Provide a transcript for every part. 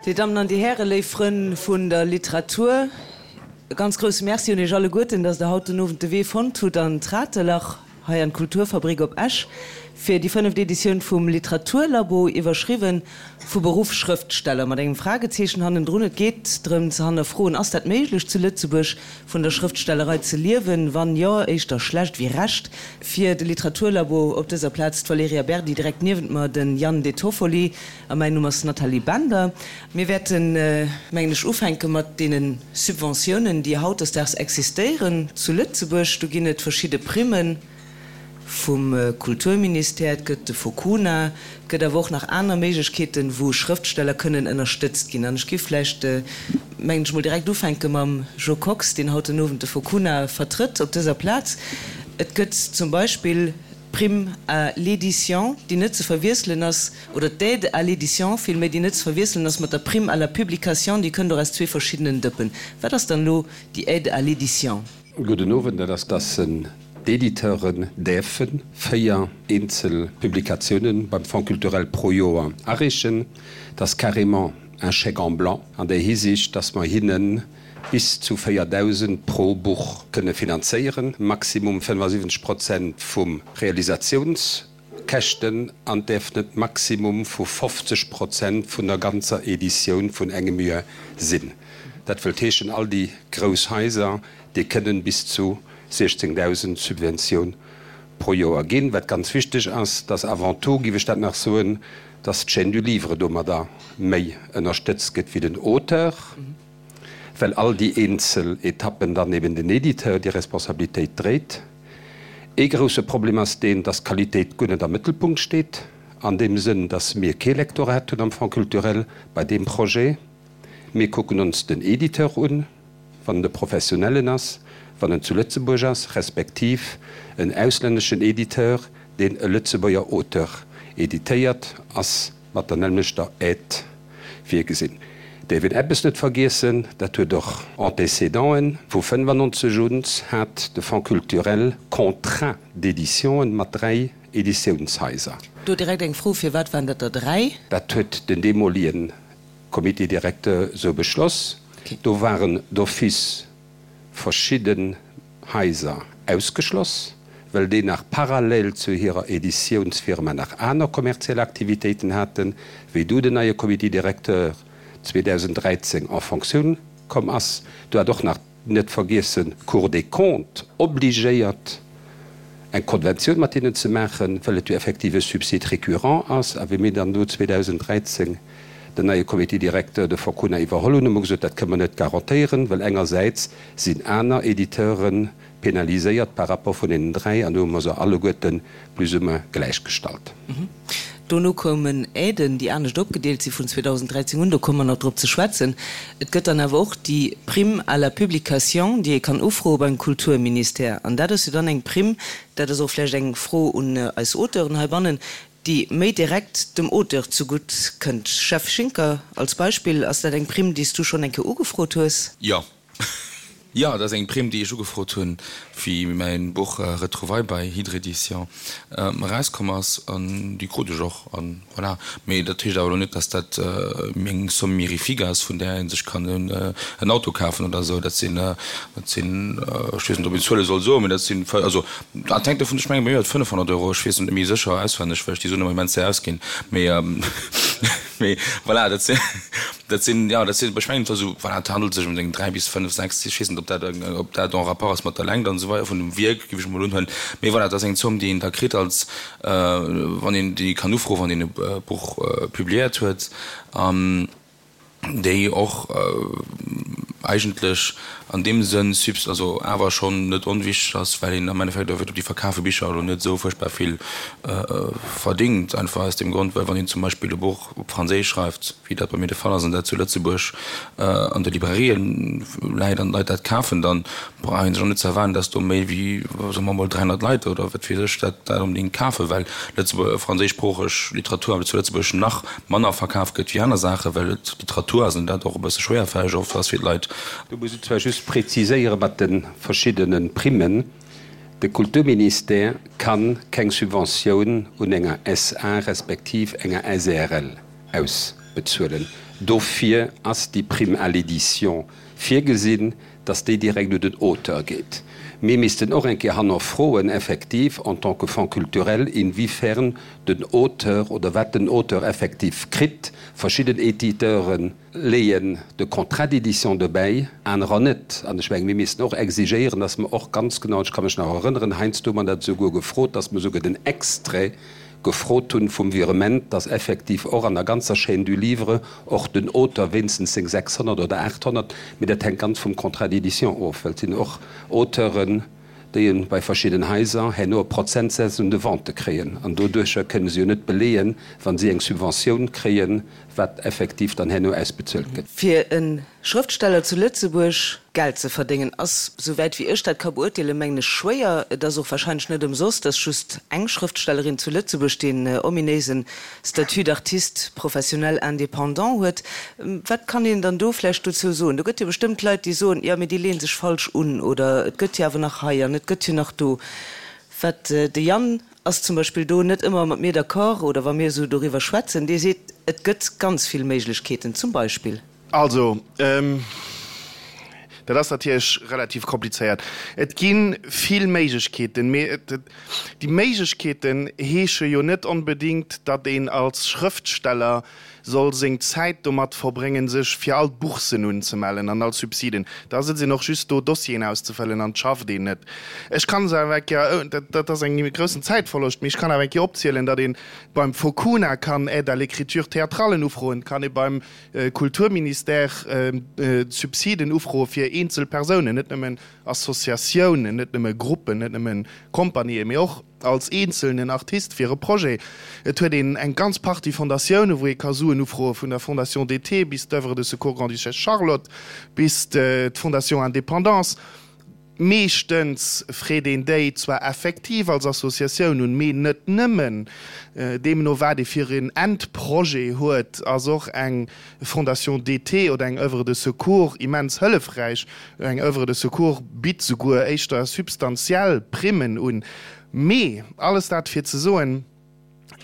Dir Dammen an Dir Hären, léif Frënn vun der Literatur, e ganz grousse Merci un Iech alleguerten, dass Der haut den Owend de Wee fonnt hutt an d'Ratelach, hei an d'Kulturfabrik op Esch, fir déi fënneft Editioun vum Literaturlabo, iwwerschriwwen Vu Beruff Schrëftsteller, mat engem Fragezeechen hannendrun. Et geet drëm ze hannerfroen, Ass dat méiglech zu Lëtzebuerg, vun der Schrëftstellerei ze liewen? Wann jo, éischter schlecht wéi recht. Fir de Literaturlabo op dëser Plaz d'Valerija Berdi, direkt niewent mer den Yann De Toffoli a mäin Numm ass Nathalie Bender. Mir wäerten, mengen ech, ufänke mat deene Subventiounen, déi hautdesdaags existéieren zu Lëtzebuerg. Do ginn et verschidde Primmen. Vum Kulturministère, et gëtt de Focuna, et gëtt awer och nach aner Méiglechkeeten, wou Schrëftsteller kënnen ënnerstëtzt ginn. An ech géif vläicht, mengen ech, mol direkt ufänke mam Jo Kox, deen haut den Owend de Focuna vertrëtt op dëser Plaz. Et gëtt zum Beispill d'Prime à l'édition, déi net ze verwiesselen ass, oder d'Aide à l'édition villméi, déi net ze verwiesselen ass mat der Prime à la publication, déi kënnt och aus zwee verschiddenen Dëppen. Wat ass dann elo déi Aide à l'édition? Gudden Owend, dat ass, dass d'Editeuren däerfe 4 eenzel Publikatiounen beim Fonds culturel pro Joer areechen. Dat ass carrément un chèque en blanc an där Hisiicht, dass mer hinne bis zu 4.000 pro Buch kënne finanzéieren, maximum 75 Prozent vum Realisatiouns. Käschten an däerf net Maximum vu 50 Prozent vun der ganzer Editioun vun engem Joer sinn. Dat wëllt heeschen, all déi grouss Haiser, déi kënnen bis zu 16.000 Subventioun pro Joer ginn. Wat ganz wichteg ass, dass avant tout, géif ech dat nach soen, dass d'Chaîne du livre domadder méi ënnerstëtzt gëtt wéi den Auteur. Well all déi eenzel Etappen dann eben den Editeur déi Responsabilitéit dréit. Ee grousse Problem ass deen, dass d'Qualitéit guer net am Mëttelpunkt steet, an deem Sënn, dass mir kee Lektorat hunn am Fonds culturel bei deem Projet. Mir kucken ons den Editeur un, wann en e professionellen ass, wann en zu Lëtzebuerg ass, respektiv en auslänneschen Editeur, deen e Lëtzebuerger Auteur editéiert, ass mat der nämlechter Aide virgesinn. Däerf een eppes net vergiessen, dat huet och Antécédenten, Vu 95 un hat de Fonds culturel Contrats d'éditionen mat dräi Editiounshaiser. Do direkt eng Fro, Firwat waren dat der dräi? Dat huet den deemolien Comité directeur esou beschloss. Do waren d'office verschidden Haiser ausgeschloss, well déi nach parallel zu hirer Editiounsfirma nach aner kommerziell Aktivitéiten haten, wéi du den neie Comité directeur 2013 en Fonctioun komm ass. Do hat och nach, net vergiessen, d'Cour des Comptes obligéiert, eng Konventioun mat hinnen ze maachen, well et jo effektiv e Subside récurrent ass. A wéi mir dann do 2013 den neie Comité directeur de Forcuna iwwerholl hunn, hu mer gesot, dat kënne mer net garantéieren, well engersäits sinn aner Editeure penaliséiert par rapport vun deenen 3, an do hu mer se alleguerte plus ou moins gläichgestallt. Dono koumen Aiden, déi anescht opgedeelt si vun 2013 un, do komme mer nach drop ze schwätzen. Et gëtt dann awer och déi Prime à la publication, déi ee kann ufroe beim Kulturministère. An dat ass jo dann eng Prime, dat ass och vläicht eng Fro un eis Auteuren heibannen, déi méi direkt dem Auteur zegutt kënnt. Jeff Schinker, als Beispill, ass dat eng Prime, déi s du schonn eng Kéier ugefrot hues? Jo. Jo, dat ass eng Prime, déi ech ugefrot hunn, wéi mäin Buch Retrouvailles bei Hydre Éditions erauskomm ass. An déi krut ech och. An voilà. Mee dat heescht awer elo net, dass dat eng Somme mirifique ass, vun där ee sech kann en Auto kafen oder esou. Dat sinn, dat sinn, ech weess net, ob een Zuele soll soen, mee dat sinn, also dat hänkt dovun, ech mengen, bei mir war et 500 Euro, ech weess et net méi sécher auswenneg, well ech déi Suen ëmmer immens séier ausginn. Mee. Mee voilà, dat sinn, dat sinn, jo, dat sinn, ech mengen, et war esou, voilà, et handelt sech ëm eng 3 bis 5, 6, ech weess net, ob dat, ob dat en rapport ass mat der Längt an esou weider vun dem Wierk, géif ech emol unhuelen. Mee voilà, et ass eng Zomm, déi een da kritt als, wann een déi kann ufroen, wann een e Buch publiéiert huet. An déi och eigentlech an deem Sënn subs-, also awer schonn net onwichtig ass, well een am Endeffekt op déi verkafe Bicher elo net esou fuerchtbar vill verdingt, einfach aus deem Grond, well wann een zum Beispill e Buch op Franséisch schreift, wéi dat bei mir de Fall ass, an dat zu Lëtzebuerg an de Librairien läit an d'Leit dat kafen, dann brauch ee sech och net ze erwaarden, dass do méi wéi, soe mer emol, 300 Leit oder wat weess ech dat dat onbedéngt kafen, well Lëtzebuerg, franséischsproocheg Literatur awer zu Lëtzebuerg nach manner verkaf gëtt wéi aner Saachen, well et Literatur ass an dat och e bësse schwéierfälleg oft ass fir d'Leit. Do muss ech zwar just preziséiere mat de verschiddene Primmen, De Kulturministère ka keng Subventioun un enger SA respektiv enger SARL ausbezuelen. Dofir ass déi Prime à l'édition virgesinn, dass déi direkt un den Auteur geet. Mir missten och eng Kéier hannerfroen, effektiv, en tant que Fonds culturel, inwiefern den Auteur oder wat den Auteur effektiv kritt. Verschidden Éditeure leeën de Contrat d'édition dobäi, anerer net. An ech mengen, mir missten och exigéieren, dass mer och ganz genau, ech ka mech nach erënneren, heiansdo hu mer dat esouguer gefrot, dass mer esouguer den Extrait gefrot hunn vum Virement, dass effektiv och an der ganzer Chaîne du livre och den Auteur wéinstens seng 600 oder 800, mee dat hänkt ganz vum Contrat d'édition of, well et sinn och Auteuren, déi e bei verschidden Haiser herno e Prozentsaz un de Vente kréien an doduercher kënne se jo net beleeën, wa si eng Subventioun kréien, wat effektiv dann herno ausbezuelt gëtt. Fir e Schrëftsteller zu Lëtzebuerg Geld ze verdéngen, ass, souwäit wéi ech dat ka beurteelen, mengen ech, schwéier. Et ass och wahrscheinlech net ëmsoss, dass just eng Schrëftstellerin zu Lëtzebuerg deen ominéisen Statut d'artiste professionnel indépendant huet. Wat kann een dann do vläicht dozou soen? Do gëtt jo bestëmmt Leit, déi soen, jo, mee déi leeën sech falsch un oder et gëtt jo awer nach hei an et gëtt jo nach do. Wat de Yann ass zum Beispill do net ëmmer mat mir d'accord oder wa mir esou doriwwer schwätzen, dee seet, et gëtt ganz vill Méiglechkeeten zum Beispill. Also, dat ass natierlech relativ komplizéiert. Et gi vill Méiglechkeeten, mee déi Méiglechkeeten heesche jo net onbedéngt, datt een als Schrëftsteller soll seng Zäit domat verbréngen, sech fir all d'Boursen unzemellen an all Subsiden. Da sëtzt een och just do, Dossieren auszefëllen an et schafft een net. Ech kann se awer eng Kéier, dat ass en groussen Zäitverloscht, mee ech kann awer eng Kéier opzielen, datt ee beim Focuna kann Aide à l'écriture théâtrale ufroen, kann ee beim Kulturministère Subsiden ufroe fir eenzel Persounen, net nëmmen Associatiounen, net nëmme Gruppen, net nëmme Compagnië, mee och als eenzelnen Artist fir e Projet. Et huet een eng ganz Partie Fondatioune wou ee ka Suen ufroe, vun der Fondation d'été bis d'Oeuvre de Secours Grande-Duchesse Charlotte bis d'Fondation Indépendance. Meeschtens freet een déi zwar effektiv als Associatioun un, mee net nëmmen. Deemno wat ee fir een Endprojet huet, ass och eng Fondation d'été oder eng Oeuvre de Secours immens hëllefräich. Eng Oeuvre de Secours bitt souguer éischter substantiell Primmen un. Mee alles dat fir ze soen,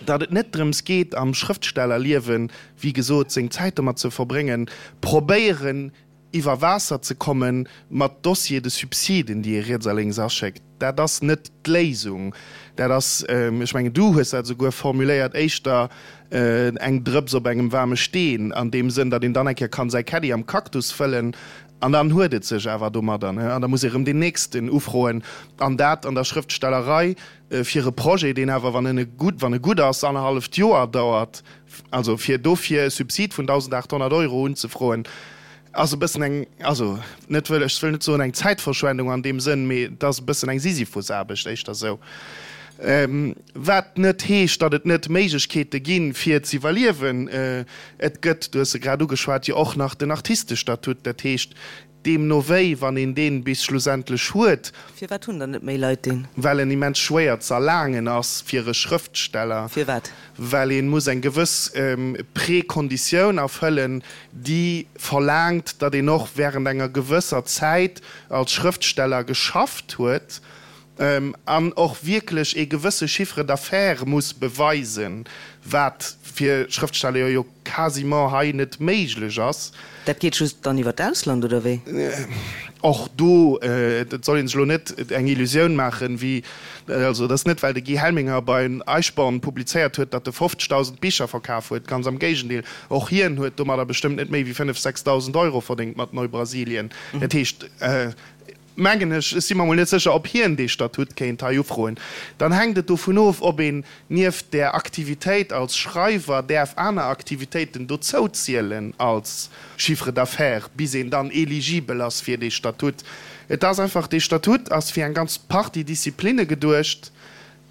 datt et net drëms geet am Schrëftstellerliewen, wéi gesot, seng Zäit domat ze verbréngen, probéieren iwwer Waasser ze komme mat Dossiers de subsiden, déi ee riets a lénks aschéckt. Dat ass net d'Léisung. Dat ass, ech mengen, du hues dat esouguer formuléiert, éischter eng Drëps op engem waarme Steen, an deem Sënn, datt een dann eng Kéier kann säi Caddie am Cactus fëllen an dann huet et sech awer domadder. An da muss ee erëm deen nächsten ufroen. An dat an der Schrëftstellerei fir e Projet, deen awer, wann en gutt, wann e gutt ass, annerhalleft Joer dauert. Also fir dofir e Subsid vun 1.800 Euro unzefroen, ass e bëssen eng, also net wëll, ech wëll net soen eng Zäitverschwendung an deem Sënn, mee et ass e bëssen eng Sisyphusaarbecht, éischter esou. Wat net heescht, datt et net Méiglechkeete ginn, fir z'iwwerliewen. Et gëtt, du hues se grad ugeschwat, jo och nach den Artistestatut. Dat heescht, Deemno wéi, wann een deen bis schlussendlech huet. Firwat hunn dann net méi Leit deen? Well en immens schwéier z'erlaangen ass fir e Schrëftsteller. Firwat? Well een muss eng gewëss Prekonditioun erfëllen, déi verlaangt, datt een och während enger gewësser Zäit als Schrëftsteller geschafft huet an och wierklech ee gewësse Chiffre d'affaires muss beweisen, wat fir Schrëftsteller jo quasiment hei net méiglech ass. Dat geet just dann iwwer d'Ausland, oder wéi? Och do, et soll ee sech elo net eng Illusioun maachen, wéi, also et ass net, well de Guy Helminger bei Eichborn publizéiert huet, datt e 50.000 Bicher verkaf huet, ganz am Géigendeel, och hien huet domadder bestëmmt net méi wéi 5, 6.000 Euro verdéngt mat Neubrasilien. Dat heescht, mengen ech, ech si mer mol net sécher, ob hien dee Statut kéint hei ufroen, dann hänkt et dovun of, ob een nieft där Aktivitéit als Schreiwer däerf aner Aktivitéiten dozou zielen als Chiffre d'affaires, bis een dann eligibel ass fir dee Statut. Et ass einfach, dee Statut ass fir eng ganz Partie Disziplinne geduecht,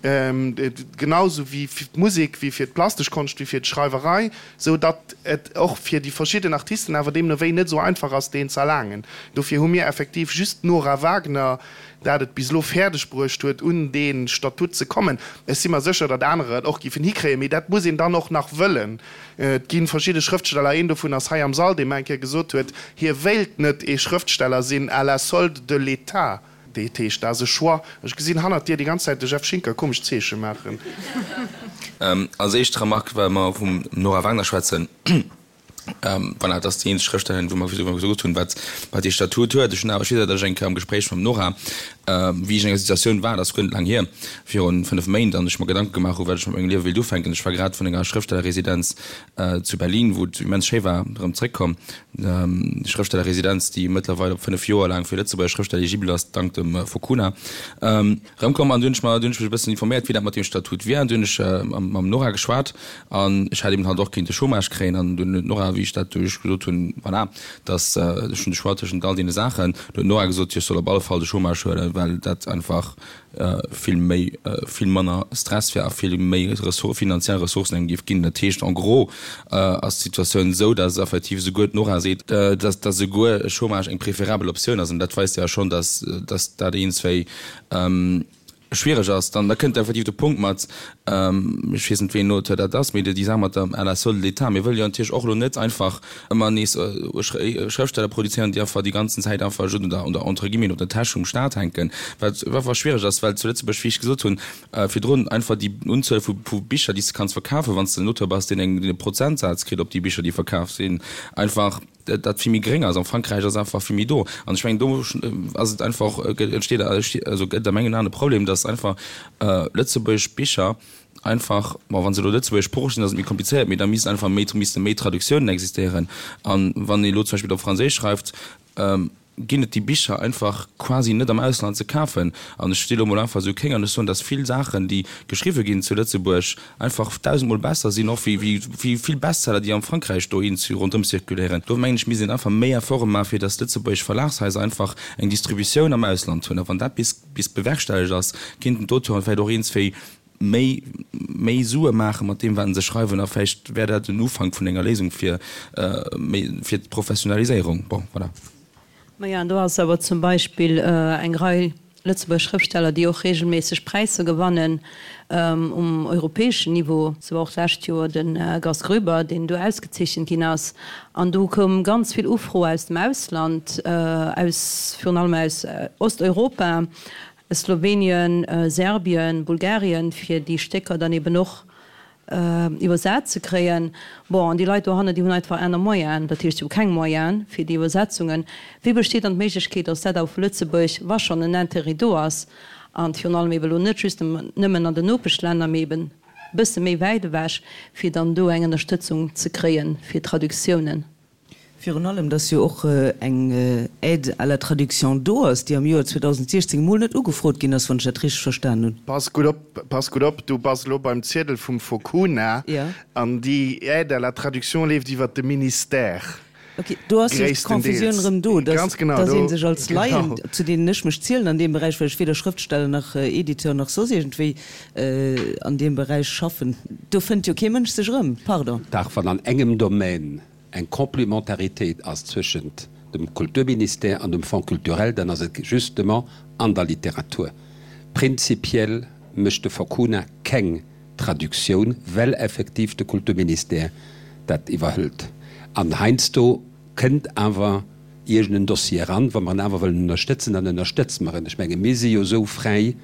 genau esou wéi fir d'Musek, wéi fir d'plastesch Konscht, wéi fir d'Schreiwerei, sou datt et och fir déi verschidden Artisten awer deemno wéi net esou einfach ass, deen z'erlaangen. Dofir hu mir effektiv just d'Nora Wagner, dat et bis elo fäerdeg bruecht huet, un dee Statut ze kommen. Ech si mer sécher, datt anerer et och giffen hikréien, mee dat muss een dann och nach wëllen. Et gi verschidde Schrëftsteller, een dovun ass hei am Sall, dee mer eng Kéier gesot huet, hie wéilt net ee Schrëftsteller sinn à la solde de l'État. Dat heescht, dat ass e Choix. Ech gesinn hannert dir déi ganz Zäit de Jeff Schinker komesch Zeeche maachen. Als éischt Remarque, well mer vum Nora Wagner schwätzen. Voilà, dat ass déi eenzeg Schrëftstellerin, wou mer wou mer gesot hunn, wat wat dee Statut huet. Ech hunn awer, ech weess awer, datt ech eng Kéier am Gespréich mam Nora, wéi ech an enger Situatioun war, dat ass guer net laang hier, virun 5 Méint, an ech mer Gedanke gemaach hu wat ech mat mengem Liewe wéilt ufänken. Ech war grad vun enger Schrëftstellerresidenz zu Berlin, wou et immens schéi war, erëm zréckkomm. Déi Schrëftstellerresidenz, déi mëttlerweil op 5 Joer laang fir Lëtzebuerger Schrëftsteller eligibel ass, dank dem Focuna. Erëmkomm an du hunn ech mer, du hunn ech mech e bëssen informéiert, wéi dat mat deem Statut wier an du hunn ech mam Nora geschwat an ech hätt eben halt och kéinte Chômage kréien an dunn huet d'Nora, wéi ech dat du ech gesot hunn, voilà, dass ech hunn de Choix tëschent all deene Saachen, du huet d'Nora gesot, jo ech soll op alle Fall de Chômage huelen, well dat einfach vill méi, vill manner Stress wär a vill méi Ressour-, finanziell Ressourcen engem géif ginn. Dat heescht en gros ass d'Situatioun esou, dass effektiv esouguer d'Nora seet, dass, dass esouguer Chômage eng préférabel Optioun ass an dat weist jo schonn, dass, dass dat eenzwéi schwiereg ass. Dann da kënnt effektiv de Punkt mat, ech weess net wéi en Auteur dat ass, mee déi Saach mat der à la solde de l'État. Mir wëlle jo natierlech och elo net einfach ëmmer nees Schrëftsteller produzéieren, déi einfach déi ganzen Zäit einfach just un der, un der, entre guillemets, op der Täsch vum Staat hänken, wat einfach schwiereg ass, well zu Lëtzebuerg, wéi ech gesot hunn virdrun, einfach déi Unzuel vu Bicher, déi s de kanns verkafen, wann s de en Auteur bass, deen eng, deen e Prozentsaz kritt op déi Bicher, déi verkaf sinn, einfach dat vill méi gréng ass. Am Frankräich ass einfach vill méi do. An ech mengen, do ass et einfach, entsteet, also gëtt a mengen Aen e Problem, dass einfach lëtzebuergesch Bicher einfach, bon, wa se elo lëtzebuergeschsproocheg sinn, ass et méi komplizéiert, mee da misst einfach méi, misste méi Traductiounen existéieren. An wann ee elo zum Beispill op Franséisch schreift, ginn et déi Bicher einfach quasi net am Ausland ze kafen. An ech si elo mol einfach esou kéng an ech soen, dass vill Saachen, déi geschriwwe ginn zu Lëtzebuerg, einfach dausendmol besser sinn och wéi wéi vill Bestseller, déi am Frankräich dohin ronderëm zirkuléieren. Do mengen ech, misst een einfach méi Efforte maachen, fir dass lëtzebuergesch Verlagshaiser einfach eng Distributioun am Ausland hunn. A wann dat bis bis bewerkstellegt ass, kéinten d'Auteuren vläicht och eenzwéi méi méi Sue maache mat deem, wat se schreiwen. A vläicht wär dat en Ufank vun enger Léisung fir méi fir d'Professionaliséierung. Bon, voilà. Maja, an do ass awer zum Beispill eng Rei Lëtzebuerger Schrëftsteller, déi och regelméisseg Präisser gewannen um europäeschen Niveau. Sou och d'lescht Joer de Gast Groeber, deen do ausgezeechent ginn ass. An do koum ganz vill Ufro aus dem Ausland, aus virun allem aus Osteuropa, Slowenien, Serbien, Bulgarien, fir déi Stécker dann eben och iwwersat ze kréien. Bon, an déi Leit dohannen, déi hunn einfach aner Moyenen, dat heescht, si hu keng Moyene fir déi Iwwersetzungen. Wéi besteet dann d'Méiglechkeet, datt dat awer vu Lëtzebuerg, wa schonn en Intérêt do ass, an virun allem eben elo net just nëmmen an den Nopeschlänner, mee eben e bësse méi wäit ewech, fir dann do eng Ënnerstëtzung ze kréie fir Traductiounen? Virun allem, dass jo och eng Aide à la traduction do ass, déi am Joer 2016 emol net ugefrot ginn ass, wann ech dat richteg verstan hunn. Pass gutt op, pass gutt op, du bass elo beim Ziedel vum Focuna an déi Aide à la traduction leeft iwwert de Ministère. Ok, do ass jo d'Confusioun erëm do, dass ee sech als Laien, zu deenen ech mech zielen an deem Beräich, well ech weder Schrëftsteller nach Editeur nach soss iergendwéi an deem Beräich schaffen, do fënnt jo kee Mënsch sech erëm, pardon. Dach, wann an engem Domaine eng Complémentaritéit ass zwëschent dem Kulturministère an dem Fonds culturel, dann ass et justement an der Literatur. Prinzipiell mécht de Focuna keng Traductioun, well effektiv de Kulturministère dat iwwerhëlt. An heiansdo kënnt awer iergend en Dossier eran, wa mer en awer wëllen ënnerstëtzen, dann ënnerstëtze mer en. Ech menge mir si jo esou fräi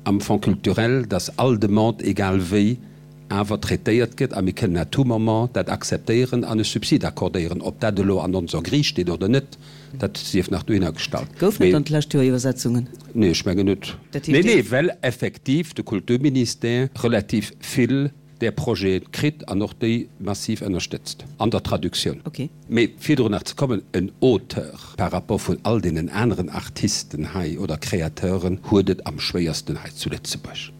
am Fonds culturel, dass all Demande, egal wéi, awer traitéiert gëtt a mir kënnen à tout moment dat akzeptéieren an e Subsid accordéieren. Ob dat elo an onser Grille steet oder net, dat sief nach dohinner gestallt. Goufen et dann d'lescht Joer Iwwersetzungen? Nee, ech mengen net. Nee, nee, well effektiv de Kulturministère relativ vill där Projete kritt an och déi massiv ënnerstëtzt an der Traductioun. Mee fir dru nach ze kommen, en Auteur par rapport vun all deenen aneren Artisten hei oder Créateuren huet et am schwéiersten hei zu Lëtzebuerg.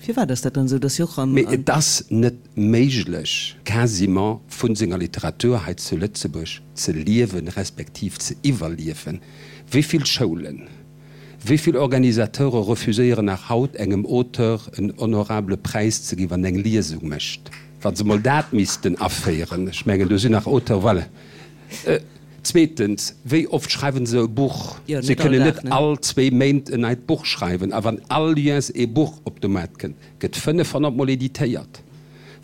Firwat ass dat dann esou, dass si och am. Mee et ass net méiglech, quasiment vu senger Literatur hei zu Lëtzebuerg ze liewen, respektiv ze iwwerliewen. Wéi vill Schoulen, wéi vill Organisateure refuséieren nach haut engem Auteur en honorable Präis ze ginn, wann en eng Liesung mécht? Wa se mol dat missten aféieren, ech mengen, do sinn nach Auteuren, voilà. Zweetens, wéi oft schreiwen se e Buch? Se kënnen net all zwéi Méint en neit Buch schreiwen. A wann all Joers ee Buch op de Maart kënnt, gëtt 500 mol editéiert.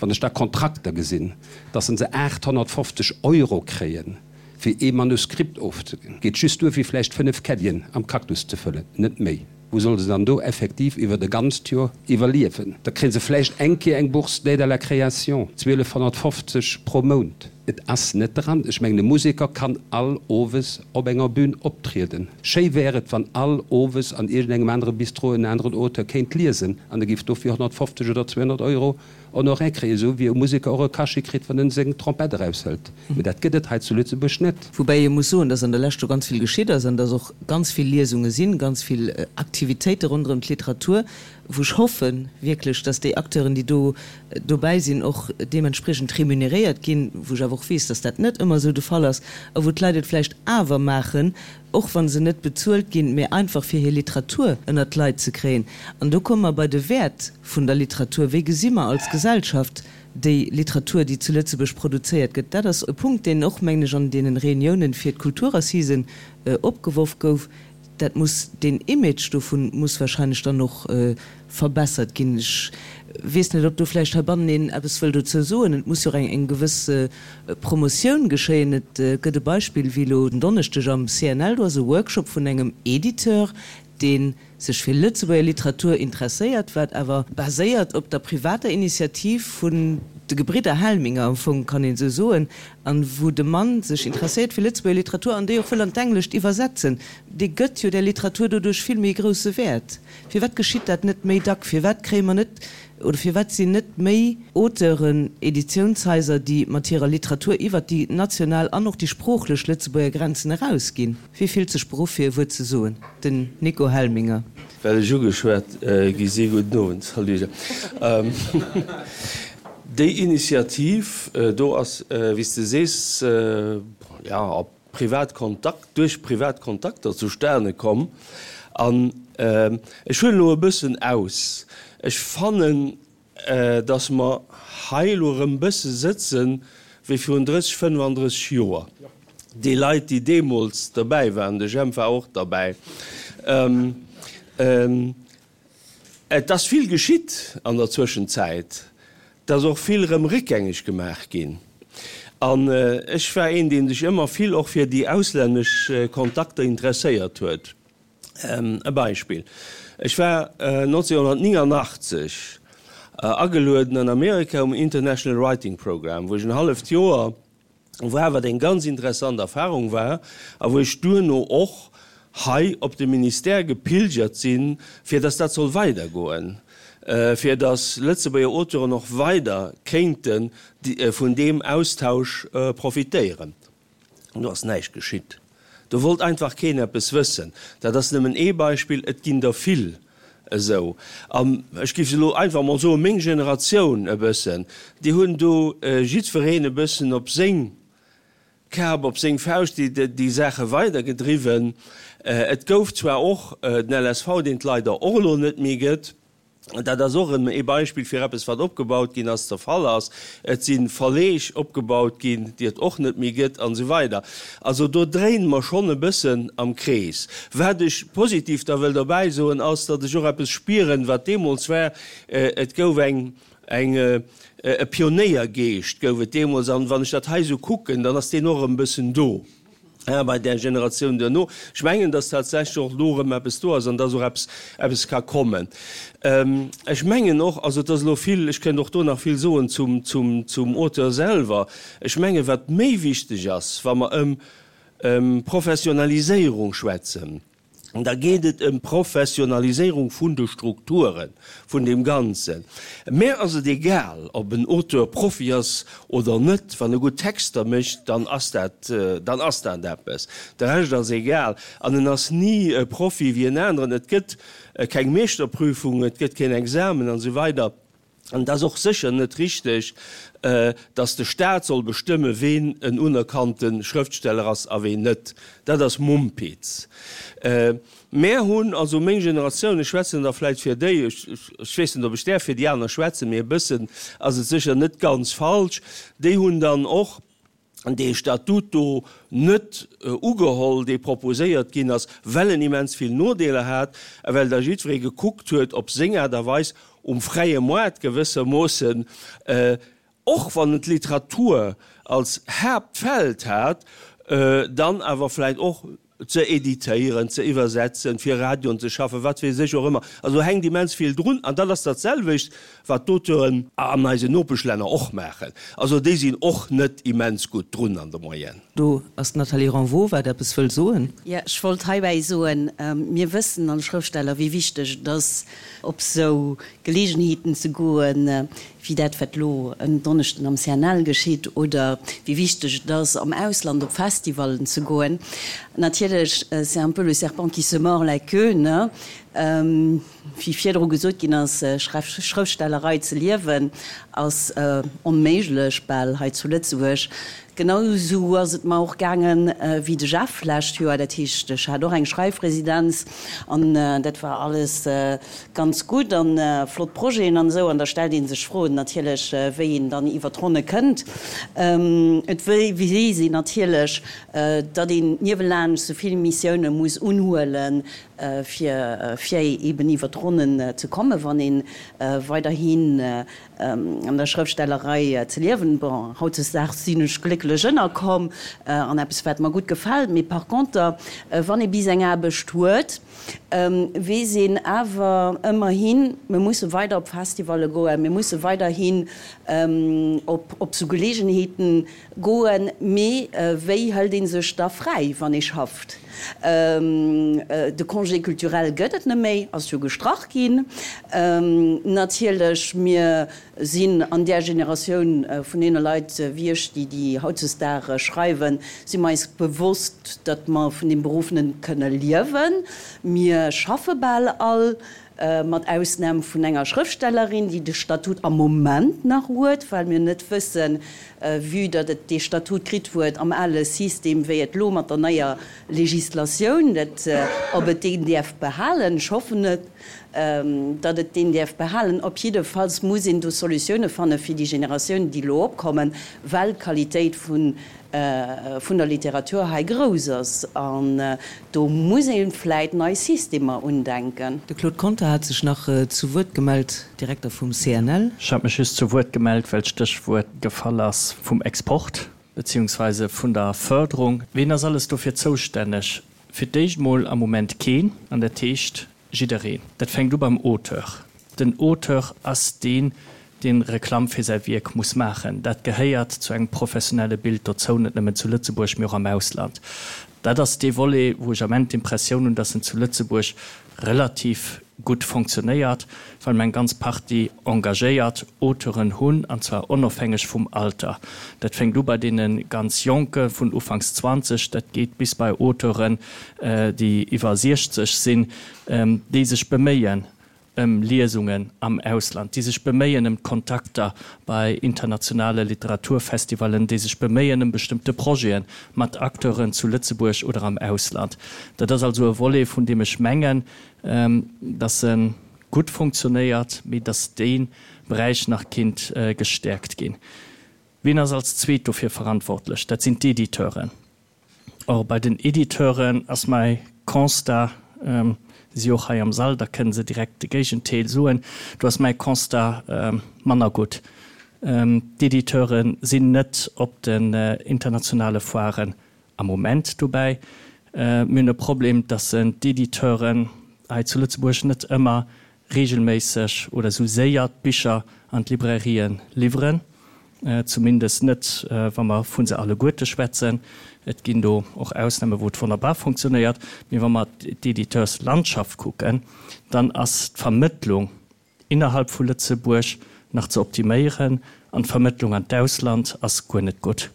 Wann ech da Kontrakter gesinn, dass se 850 Euro kréien, fir ee Manuskript ofzeginn, geet just duer, fir vläicht 5 Caddien am Cactus ze fëllen, net méi. Wou solle se dann do effektiv iwwert e ganzt Joer iwwerliewen? Da kréie se vläicht eng Kéier eng Bourse d'aide à la création, 1250 pro Mount. Et ass net dran. Ech mengen, e Museker kann all Owes op enger Bühn optrieden. Schéi wär et, wann all Owes an iergendengem anere Bistro en aneren Auteur kéint liesen an e géif dofir 150 oder 200 Euro Honoraire kréien, esou wéi e Museker och e Cachet kritt, wann en seng Trompett eraushëlt. Mee dat gëtt et hei zu Lëtzebuerg net. Woubäi ee muss soen, dass an der Lescht do ganz vill geschitt ass an dass och ganz vill Liesunge sinn, ganz vill Aktivitéite ronderëm d'Literatur, wou ech hoffen wierklech, dass déi Acteuren, déi do dobäi sinn, och deementspriechend remuneréiert ginn, wou ech awer och weess, dass dat net ëmmer esou de Fall ass a wou d'Leit et vläicht awer maachen, och wa se net bezuelt ginn, mä einfach fir hir Literatur ënnert d'Leit ze kréien. An do komme mer bei de Wäert vun der Literatur. Wéi gesi mer als Gesellschaft déi Literatur, déi zu Lëtzebuerg produzéiert gëtt? Dat ass e Punkt, deen och, mengen ech, an deene Reuniounen fir d'Kulturassisen opgeworf gouf. Dat muss, deen Image dovun muss wahrscheinlech dann och verbessert ginn. Ech weess net, ob do vläicht heibannen een eppes wëll dozou soen. Et muss jo och eng gewëss Promotioun geschéien. Et gëtt e Beispill wéi elo den Donneschdeg am CNL, do ass e Workshop vun engem Editeur, dee sech fir Lëtzebuerger Literatur interesséiert, wat awer baséiert op der privater Initiativ vun de Gebridder Helminger, am Fong kann een esou soen, an wou de Mann sech interesséiert fir Lëtzebuerger Literatur an déi och wëll an d'Englescht iwwersetzen. Dee gëtt jo där Literatur doduerch vill méi e grousse Wäert. Firwat geschitt dat net méi dack? Firwat kréie mer net, oder firwat sinn net méi Auteuren, Editiounshaiser, déi mat hirer Literatur iwwert déi national an och déi sproochlech Lëtzebuerger Grenzen erausginn? Wie fillt sech beruff fir e Wuert ze soen? Den Nico Helminger. Well ech ugeschwat gi si, gudden Owend, salut. Déi Initiativ do ass, wéi s de sees, jo, op privat Kontakt, duerch privat Kontakter zustane komm. An ech huelen elo e bëssen aus, ech fannen, datt mer hei elo erëm e bësse sëtze wéi virun 30, 35 Joer. Déi Leit, déi deemools derbäi waren, de Jemp war och derbäi, Et ass vill geschitt an der Zwëschenzäit. Et ass och vill erëm réckgängeg gemaach ginn. An ech war een, dee sech ëmmer vill och fir déi auslännesch Kontakter interesséiert huet. E Beispill, Ech war 1989 agelueden an Amerika um International Writing Program, wou ech en halleft Joer war, wat eng ganz interessant Erfahrung war a wou ech duerno och hei op de Ministère gepilgert sinn, fir dass dat soll weidergoen, fir dass Lëtzebuerger Auteuren och weider kéinte vun deem Austausch profitéieren. Do ass näischt geschitt. Do wollt einfach keen eppes wëssen. Dat ass nëmmen ee Beispill, et ginn der vill esou. An ech géif elo einfach emol soen, meng Generatioun e bëssen, déi hunn do jiddwereen e bëssen op seng Kap, op seng Fauscht déi Saache weidergedriwwen. Et gouf zwar och den LSV, deen et leider och elo net méi gëtt, Dat ass och erëm ee Beispill fir eppes, wat opgebaut ginn ass, zerfall ass. Et si Verleeg opgebaut ginn, déi et och net méi gëtt, an esou weider. Also do dréine mer schonn e bëssen am Krees. Wat ech positiv da wëll derbäi soen, ass, datt ech och eppes spieren, wat deemools war. Et gouf eng, eng, e Pionéiergeescht gouf et deemools. An wann ech dat hei esou kucken, dann ass deen och erëm e bëssen do. Bei där Generatioun duerno. Ech mengen, dass tatsächlech och elo erëm eppes do ass an dass och eppes, eppes ka kommen. Ech mengen och, also et ass elo vill, ech kënnt och do nach vill soen zum, zum, zum Auteur selwer. Ech mengen, wat méi wichteg ass, wa mer ëm, ëm Professionaliséierung schwätzen, Da geet et ëm d'Professionaliséierung vun de Strukture vun deem Ganzen. Mär ass et egal, ob en Auteur Profi ass oder net. Wann e gutt Texter mécht, dann ass dat, dann ass dat eppes. De Rescht ass egal. An en ass ni e Profi wéi en aneren. Et gëtt keng Meeschterprüfung, et gëtt keen Examen an esou weider. An et ass och sécher net richteg, datt de Staat soll bestëmme ween en unerkannte Schrëftsteller ass a ween net. Dat ass Mumpitz. Mär hunn, also meng Generatioun, ech schwätzen da vläicht fir déi, ech weess net ob ech däerf fir déi aner schwätzen, mee e bëssen ass et sécher net ganz falsch, déi hunn dann och, dee Statut do net ugeholl, dee proposéiert ginn ass, well en immens vill Nodeeler hat a well da jiddweree gekuckt huet, op seng Aart a Weis um fräie Moart gewëssermoossen, och wann en d'Literatur als Haaptfeld hat, dann awer vläicht och. ze editéieren, ze iwwersetzen, fir Radioen ze schaffen, wat weess ech och ëmmer. Also do hänkt immens vill drun an dat ass dat selwecht, wat d'Auteuren an eisen Nopeschlänner och maachen. Also déi sinn och net immens gutt drun an der Moyenne. Do ass d'Nathalie Renvaux, wat eppes wëll soen. Jo, ech wollt heibäi soen, mir wëssen als Schrëftsteller, wéi wichteg et ass, op sou Geleegenheeten ze goen, wéi dat, wat elo en Donneschden am CNL geschitt, oder wéi wichteg et ass, am Ausland op Festivallen ze goen. Natierlech, c'est un peu le serpent qui se mord la queue, ne? Wéi virdru gesot ginn ass, Schrëftstellerei ze liewen ass onméiglech bal hei zu Lëtzebuerg. Genau esou ass et mer och gaangen wéi de Jeff lescht Joer. Dat heescht, ech hat och eng Schreifresidenz an dat war alles ganz gutt an flott Projeten an esou. An da stellt ee sech Froen natierlech, wéi een dann iwwer d'Ronne kënnt. Et weess een natierlech, datt een niewelaanscht esou vill Missioune muss unhuelen, fir fir eben iwwer d'Ronnen ze kommen, wann ee weiderhin an der Schrëftstellerei ze liewen. Bon, hautdesdaags sinn ech glécklech ënnerkomm an eppes, wat mer gutt gefält. Mee par conter, wann ee bis eng Aarbecht huet, weess een awer ëmmerhin, mir musse weider op Festivalle goen, mir musse weiderhin op op sou Geleegenheeten Goen, mee wéi hëlt ee sech da fräi, wann ee schafft? De Congé culturel gëtt et net méi, ass jo gestrach ginn. Natierlech, mir sinn an där Generatioun vun deene Leit wéi ech, déi déi hautzesdag schreiwen, si mer eis bewosst, datt mer vun deem Beruff net kënne liewen. Mir schaffe bal all. Mat Ausnam vun enger Schrëftstellerin, déi de Statut am Moment nach huet, well mir net wëssen, vue datt et dee Statut kritt huet am ale System, wéi et elo mat der neier Législatioun, dat, ob et deen däerf behalen. Ech hoffen et, datt et deen däerf behalen. Op jiddefalls muss een do Solutioune fanne fir déi Generatiounen, déi elo opkommen, well d'Qualitéit vun vun der Literatur hei grouss ass an do muss ee vläit nei Systemer undenken. De Claude Conter hat sech nach zu Wuert gemellt, Direkter vum CNL. Ech hat mech just zu Wuert gemellt, well d'Stéchwuert gefall ass vum Export beziehungsweise vun der Förderung. Ween ass alles dofir zoustänneg? Fir d'éischt mol am Moment keen, an dat heescht jiddereen. Dat fänkt u beim Auteur. Den Auteur ass deen, dee Reklamm fir säi Wierk muss maachen. Dat gehéiert zu engem professionelle Bild dozou, net nëmmen zu Lëtzebuerg, mee och am Ausland. Dat ass dee Volet, wou ech am Enn d'Impressioun hunn, dass en zu Lëtzebuerg relativ gutt fonctionnéiert, well mer eng ganz Partie engagéiert Auteuren hunn, an zwar onofhängeg vum Alter. Dat fänkt u bei deene ganz Jonke vun ufanks 20, dat geet bis bei Auteuren, déi iwwer 60 sinn, déi sech beméien ëm Liesungen am Ausland, déi sech beméien ëm d'Kontakter bei internationale Literaturfestivallen, déi sech beméien ëm bestëmmte Projete mat Acteuren zu Lëtzebuerg oder am Ausland. Dat ass also e Volet, vun deem ech mengen, dass e gutt funktionéiert, mee dass dee Beräich nach kinnt gestäerkt ginn. Wien ass als Zweet dofir verantwortlech? Dat sinn d'Editeuren. Or, bei den Editeuren ass mäi Constat, si och hei am Sall, da kënne se direkt de Géigentéel soen, do ass mäi Constat manner gutt. D'Editeure sinn net op den internationale Foiren am Moment dobäi. Mir hunn e Problem, dass d'Editeuren hei zu Lëtzebuerg net ëmmer regelméisseg oder esou séier d'Bicher an d'Librairien liwweren, zumindest net wa mer vu se alleguerte schwätzen. Et ginn do och Ausname wou et wonnerbar funktionéiert, mee wa mer d'Editeurslandschaft kucken, dann ass d'Vermëttlung innerhalb vu Lëtzebuerg nach ze optiméieren an d'Vermëttlung an d'Ausland ass guer net gutt.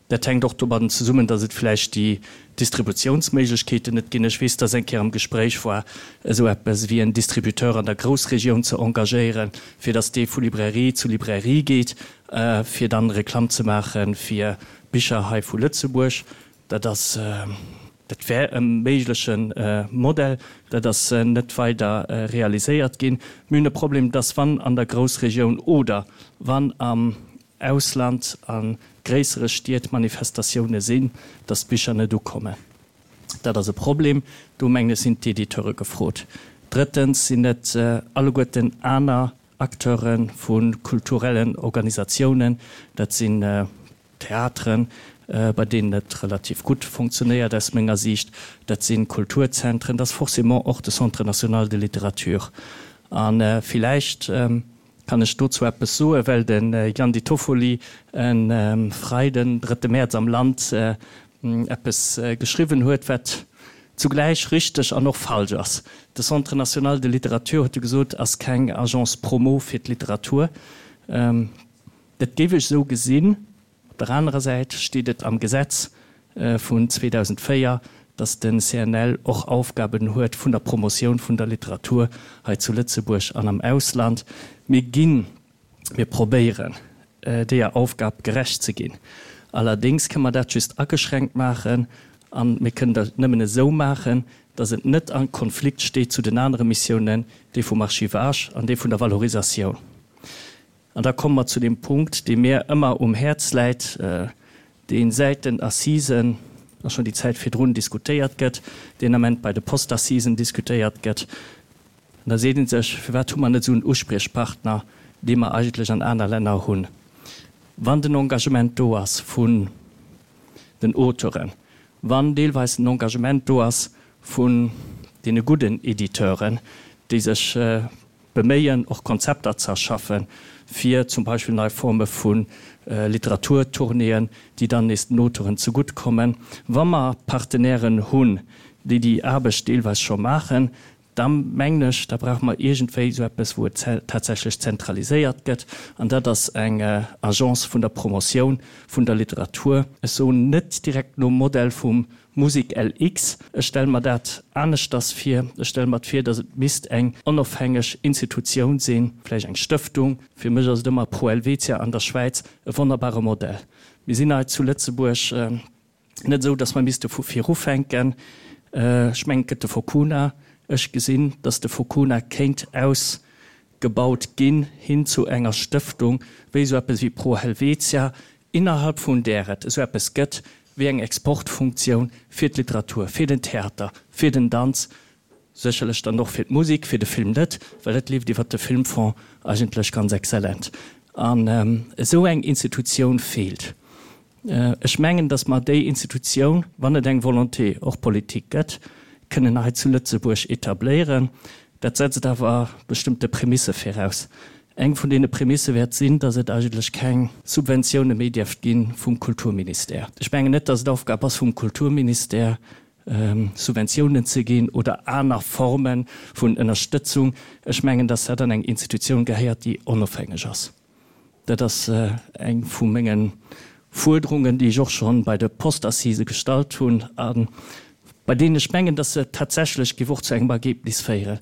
Dat hänkt och domadden zesummen, datt et vläicht déi Distributiounsméiglechkeeten net ginn. Ech weess, datt eng Kéier am Gespréich war, esou eppes wéi en Distributeur an der Groussregioun ze engagéieren, fir datt dee vu Librairie zu Librairie geet, fir dann Reklamm ze maache fir Bicher hei vu Lëtzebuerg. Dat ass, dat wär e méigleche Modell. Dat ass net weider realiséiert ginn. Mir hunn e Problem, datt wann an der Groussregioun oder wann am Ausland a gréissere Stied Manifestatioune sinn, datt d'Bicher net ukommen. Dat ass e Problem. Do mengen ech sinn d'Editeure gefrot. Drëttens sinn et alleguerten aner Acteure vu kulturellen Organisatiounen. Dat si. Theateren, bei deenen et relativ gutt funktionéiert aus menger Siicht, dat si Kulturzentren, dat ass forcément och de Centre national de littérature. A villäicht kann ech dozou eppes soen, well de Gian Di Toffoli e Freiden, drëtte Mäerz am Land eppes geschriwwen huet, wat zugläich richteg an och falsch ass. De Centre national de littérature, huet e gesot, ass keng Agence promo fir d'Literatur. Dat géif ech esou gesinn. Op der anerer Säit steet et am Gesetz vun 2004, datt de CNL och Aufgaben huet vun der Promotioun vun der Literatur hei zu Lëtzebuerg an am Ausland. Mir ginn, mir probéieren, deeër Aufgab gerecht ze ginn. Allerdéngs kënne mer dat just ageschränkt maachen a mir kënnen dat nëmmen esou maachen, datt et net a Konflikt steet zu den anere Missiounen, déi vum Archivage an déi vun der Valorisatioun. An da komme mer zu deem Punkt, dee mir ëmmer um Häerz läit, dee säit den Assisen a schonn déi Zäit virdrun diskutéiert gëtt, deen Ament bei de Postassisen diskutéiert gëtt. An da seet ee sech, Firwat hu mer net esou en Uspriechpartner, dee mer eigentlech an aner Länner hunn? Wann den Engagement do ass vun den Auteuren, wann deelweis den Engagement do ass vun deene gudden Editeuren, déi sech beméien, och Konzepter ze erschaffen, fir zum Beispill nei Forme vu Literaturtournéeën, déi dann nees den Auteuren zegutt kommen. Wa mer Partenairen hunn, déi déi Aarbecht deelweis scho maachen, da mengen ech, da brauche mer iergendwéi esou eppes, wou et tatsächlech zentraliséiert gëtt, an dat ass eng Agence vun der Promotioun vun der Literatur. Ech soen net direkt nom Modell vum Musik LX, Ech stelle mer dat aneschters vir. Ech stelle mer et vir, datt et misst eng onofhängeg Institutioun sinn, vläicht eng Stëftung. Fir mech ass et ëmmer Pro Helvetia an der Schwäiz e wonnerbare Modell. Mir sinn hei zu Lëtzebuerg net esou, datt mer misste vu vir ufänken. Ech mengen, et gëtt de Focuna. Ech gesinn, datt de Focuna kéint ausgebaut ginn hin zu enger Stëftung, wéi esou eppes wéi Pro Helvetia, innerhalb vun där et esou eppes gëtt wéi eng Exportfunktioun fir d'Literatur, fir den Theater, fir den Danz, sécherlech dann och fir d'Musik, fir de Film net, well dat leeft iwwert de Filmfonds eigentlech ganz exzellent. An esou eng Institutioun feelt. Ech mengen, datt mer déi Institutioun, wann et eng Volonté och politique gëtt, kënnen hei zu Lëtzebuerg etabléieren. Dat setzt awer bestëmmte Prämisse viraus. Eng vun deene Prämisse wäert sinn, datt et eigentlech keng Subventioune méi dierft gi vum Kulturministère. Ech mengen net, datt et Aufgab ass vum Kulturministère, Subventiounen ze ginn oder aner Forme vun Ënnerstëtzung. Ech mengen, datt dat an eng Institutioun gehéiert, déi onofhängeg ass. Dat ass eng vu menge Fuerderungen, déi ech och scho bei de Postassisë gestallt hunn a bei deenen ech mengen, dass se tatsächlech géif och zu engem Ergebnis féieren.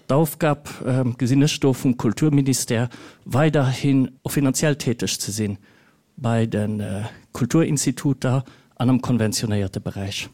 D'Aufgab gesinn ech do vum Kulturministère, weiderhin och finanziell täteg ze sinn bei de Kulturinstituter an am konventionéierte Beräich.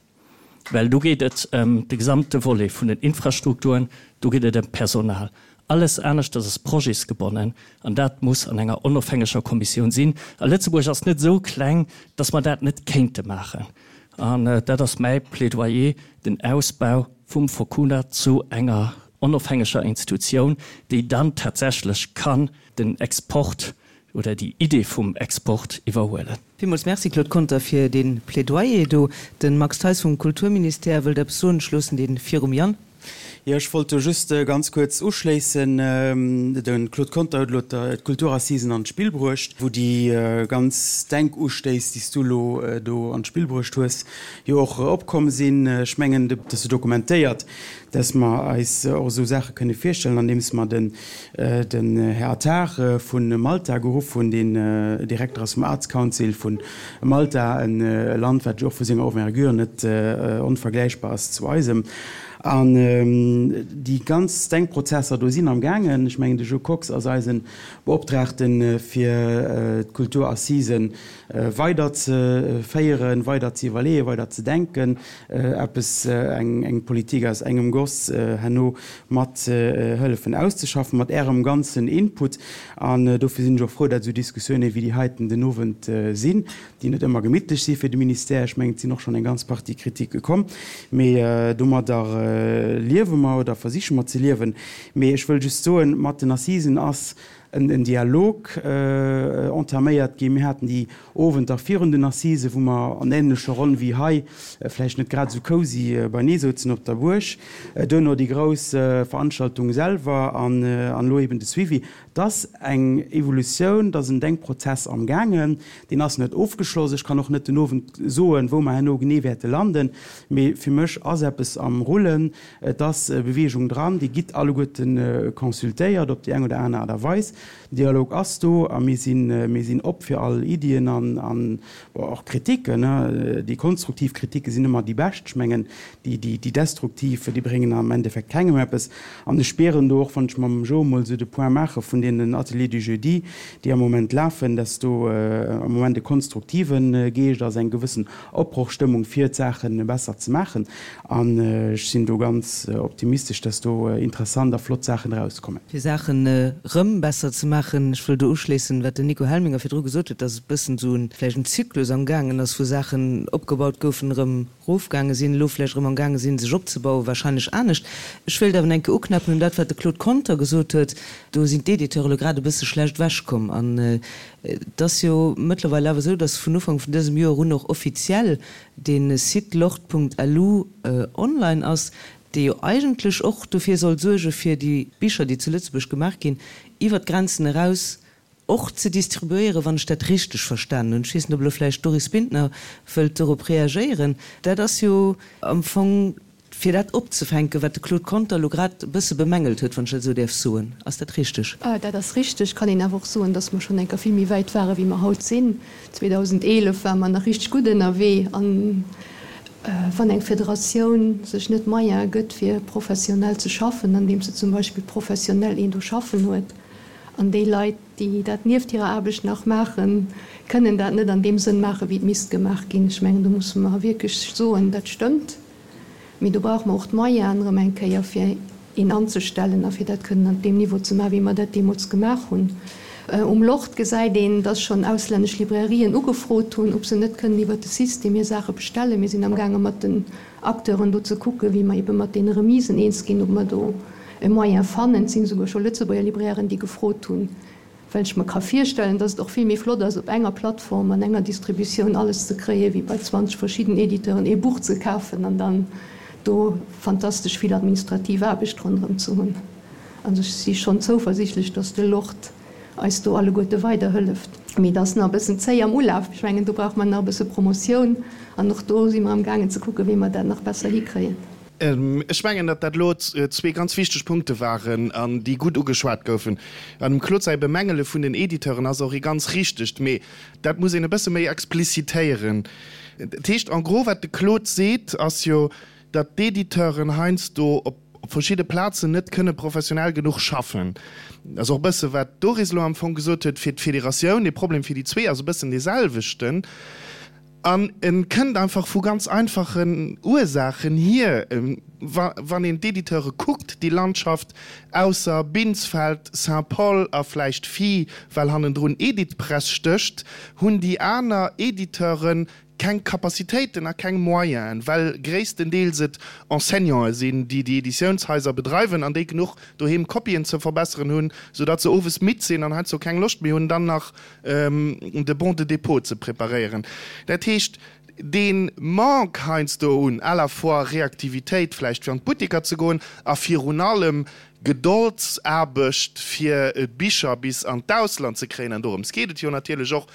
Well do geet et ëm de gesamte Volet vun den Infrastrukturen, do geet et ëm d'Personal. Alles aneschters ass projetsgebonnen an dat muss an enger onofhängeger Kommissioun sinn. A Lëtzebuerg ass net esou kleng, datt mer dat net kéinte maachen. An dat ass mäi Plädoyer, den Ausbau vum Focuna zu enger onofhängeger Institutioun, déi dann tatsächlech kann den Export oder déi Idee vum Export iwwerhuelen. Villmools Merci, Claude Conter, fir dee Plädoyer do. De Max Theis vum Kulturministère wëllt eppes soen. Ech loossen dee virum Yann. Jo, ech wollt do just ganz kuerz uschléissen. De Claude Conter huet elo d'Kulturassisen an d'Spill bruecht, wou déi ganz Denkustéiss, déi s du elo do an d'Spill bruecht hues, jo och opkomm sinn. Ech mengen, dat ass jo dokumentéiert, dass mer eis och esou Saache kënne virstellen, andeems mer den Här Attard vu Malta geruff hunn, deen Direkter ass vum Arts Council vu Malta, e Land, wat jo och vu senger Envergure net onvergläichbar ass zu eisem. An déi ganz Denkprozesser do sinn am gaangen. Ech mengen, de Jo Kox ass eise Beoptraagte fir d'Kulturassisen weider ze féieren, weider ze iwwerleeën, weider ze denken, eppes, eng Politik aus engem Goss herno mat hëllefen auszeschaffen, mat Ärem ganzen Input. An dofir sinn ech och frou, dat esou Diskussioune wéi déi heiten den Owend sinn, déi net ëmmer gemittlech si fir de Ministère. Ech mengen, et sinn och schonn eng ganz Partie Kritike komm, mee domadder liewe mer oder versiche mer ze liewen. Mee ech wëll just soen, mat den Assisen ass. en Dialog entaméiert ginn. Mir haten déi Owenter virun den Assisen, wou mer an änlecher Ronn wéi hei, vläicht net grad esou cosy, beinee souzen op der Buerg. Duerno déi grouss Veranstaltung selwer an elo eben de Suivi. Et ass eng Evolutioun, et ass en Denkprozess amgaangen. Deen ass net ofgeschloss. Ech kann och net den Owend soen, wou mer herno genee wäerte landen. Mee fir mech ass eppes am Rullen. Et ass Beweegung dran. Dir gitt alleguerte consultéiert op déi eng oder aner Aart a Weis. Den Dialog ass do a mir sinn, mir sinn op fir all Iddien an, an och Kritiken. Déi konstruktiv Kritike sinn ëmmer déi bescht. Ech mengen, déi, déi, déi destruktiv, déi bréngen am Endeffekt kengem eppes. An ech spieren do och, wann ech mam Joe emol esou de Point maache vun deenen Ateliers du jeudi, déi am Moment lafen, dass do am Moment e konstruktive Geescht ass, eng gewëssen Opbrochstëmmung fir d'Saache besser ze maachen. An ech sinn do ganz optimistesch, dass do interessant a flott Saachen erauskommen. Fir Saachen erëm besser ze maachen, ech wëll do uschléissen, wat den Nico Helminger virdru gesot huet, dass e bëssen esou en, vläicht en Zyklus amgaangen ass, wou Saachen opgebaut goufen, erëm erofgaange sinn, elo vläicht erëm amgaange sinn, sech opzebauen, wahrscheinlech anescht. Ech wéilt awer nach eng Kéier uknäppen un dat, wat de Claude Conter gesot huet. Do sinn d'Editeure elo grad e bësse schlecht ewechkomm. An et ass jo mëttlerweil awer esou, dass vun Ufank vun dësem Joer un och offiziell dee Site lort.lu online ass, dee jo eigentlech och dofir soll suerge fir déi Bicher, déi zu Lëtzebuerg gemaach ginn, iwwer d'Grenzen eraus och ze distribuéieren, wann ech dat richteg verstanen hunn. Ech weess net, ob elo vläicht d'Doris Bintner wëllt dorop reagéieren. Dat ass jo am Fong Fir dat opzefänken, wat de Claude Conter elo grad e bësse bemängelt huet, wann ech dat esou däerf soen. Ass dat richteg? Dat ass richteg. Kann een awer och soen, dass mer schonn eng Kéier vill méi wäit ware wéi mer haut sinn. 2011 ware mer nach richteg gutt ënnerwee. An wann eng Federatioun sech net d'Moyene gëtt, fir professionell ze schaffen, andeems se zum Beispill professionell een do schaffen huet, an déi Leit, déi dat nieft hirer Aarbecht nach maachen, kënnen dat net an deem Sënn maachen, wéi et misst gemaach ginn. Ech mengen, do musse mer wierklech soen, dat stëmmt. Mee do brauche mer och d'Moyenen erëm eng Kéier, fir een anzestellen a fir dat kënnen an deem Niveau ze maachen, wéi mer dat deemools gemaach hunn. Um Lort gesäit een, dass schonn auslännesch Librairien ugefrot hunn, ob se net kënnen iwwert de System hir Saache bestellen. Mir sinn amgaange mat den Acteuren do ze kucken, wéi mer ebe mat deene Remisen eens ginn, ob mer do e Moyen fannen. Et sinn esouguer scho Lëtzebuerger Librairen, déi gefrot hunn. Well ech mer ka virstellen, dass et och vill méi flott ass, op enger Plattform an enger Distributioun alles ze kréien, wéi bei 20 verschidden Editeuren ee Buch ze kafen an dann do fantastesch vill administrativ Aarbecht ronderëm ze hunn. Also ech si schonn zouversichtlech, dass de Lord eis do alleguerte weiderhëlleft. Mee et ass nach e bëssen zéi am Ulaf. Ech mengen, do brauche mer nach e bësse Promotioun an och do si mer amgaangen ze kucken, wéi mer dat nach besser hikréien. Ech mengen, datt dat elo zwee ganz wichteg Punkte waren an déi gutt ugeschwat goufen. An dem Claude säi Bemängele vun den Editeuren ass och ee ganz richtegt, mee dat muss een e bësse méi explicitéieren. Dat heescht en gros, wat de Claude seet, ass jo, datt d'Editeuren heiansdo op verschidde Plazen net kënne professionell genuch schaffen. Dat ass och e bësse wat d'Doris elo am Fong gesot huet fir d'Federatioun. De Problem fir déi zwee ass e bëssen deeselwechten. An e kënnt einfach vu ganz einfachen Ursaachen hier. Wann een d'Editeure kuckt, déi Landschaft, ausser Binsfeld, Saint-Paul a vläicht Phi, well hannendrun Editpress stécht, hunn déi aner Editeure keng Capacitéiten a keng Moyenen, well gréisstendeels et Enseignanten sinn, déi déi Editiounshaiser bedreiwen an déi genuch doheem Kopien ze verbesseren hunn, soudatt se owes midd sinn an heiansdo keng Loscht méi hunn, dann nach de Bon de dépôt ze preparéieren. Dat heescht, dee Manque heiansdo un à la fois Reaktivitéit vläicht fir an d'Butteker ze goen a virun allem Gedoldsaarbecht fir d'Bicher bis an d'Ausland ze kréien, an dorëms geet et jo natierlech och,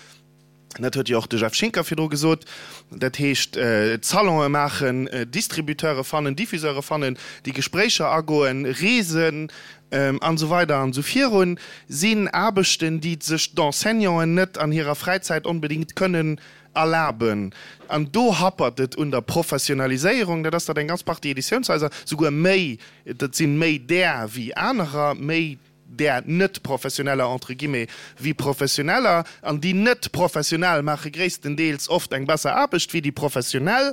dat huet jo och de Jeff Schinker virdru gesot, dat heescht Salonë maachen, Distributeure fannen, Diffuseure fannen, déi Gespréicher agoen, Reesen, an esou weider an esou virun, sinn Aarbechten, déi sech d'Enseignanten net an hirer Fräizäit onbedéngt kënnen erlaben. An do happert et un der Professionaliséierung. Dat ass, datt eng ganz Partie Editiounshaiser, souguer méi, dat si méi där wéi anerer, méi där net-professioneller entre guillemets wéi professioneller, an déi net-professionell maache gréisstendeels oft eng besser Aarbecht wéi déi professionell,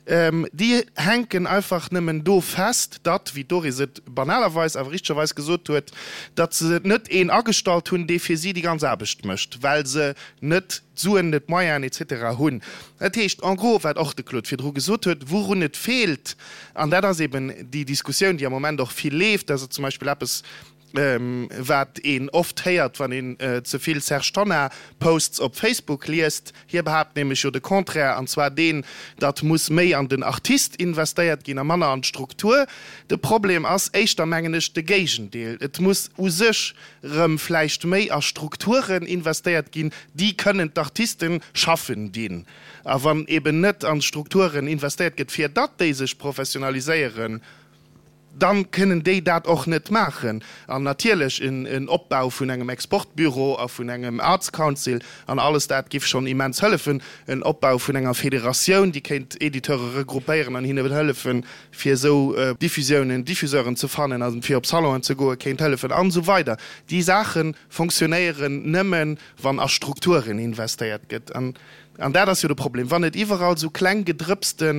déi hänken einfach nëmmen do fest, datt, wéi d'Doris et banalerweis, awer richtegerweis gesot huet, datt se net een agestallt hunn, dee fir si déi ganz Aarbecht mécht, well se net d'Suen, net d'Moyenen et cetera hunn. Dat heescht en gros, wat och de Claude virdru gesot huet, wourun et feelt, an dat ass eben déi Diskussioun, déi am Moment och vill leeft, dat ass zum Beispill eppes. wat een oft héiert, wann een ze vill Serge Tonnar Posts op Facebook liest. Hie behaapt nämlech jo de Contraire, an zwar deen, datt muss méi an den Artist investéiert ginn a manner an d'Struktur. De Problem ass éischter, mengen ech, de Géigendeel. Et muss u sech rëm vläicht méi a Strukturen investéiert ginn, déi kënnen d'Artisten schaffen dinn. A wann eben net an Strukturen investéiert gëtt, fir datt déi sech professionaliséieren, dann kënnen déi dat och net maachen. An natierlech en Opbau vun engem Exportbüro a vun engem Arts Council an alles dat giff schonn immens hëllefen. En Opbau vun enger Federatioun, déi kéint Editeure regroupéieren an hinne hëllefen, fir esou Diffusiounen, Diffuseuren ze fannen a fir op Salonen ze goen, kéint hëllefen an esou weider. Déi Saache fonctionnéieren nëmmen, wann a Strukturen investéiert gëtt. An dat ass jo de Problem, wann et iwwerall esou kleng gedrëpste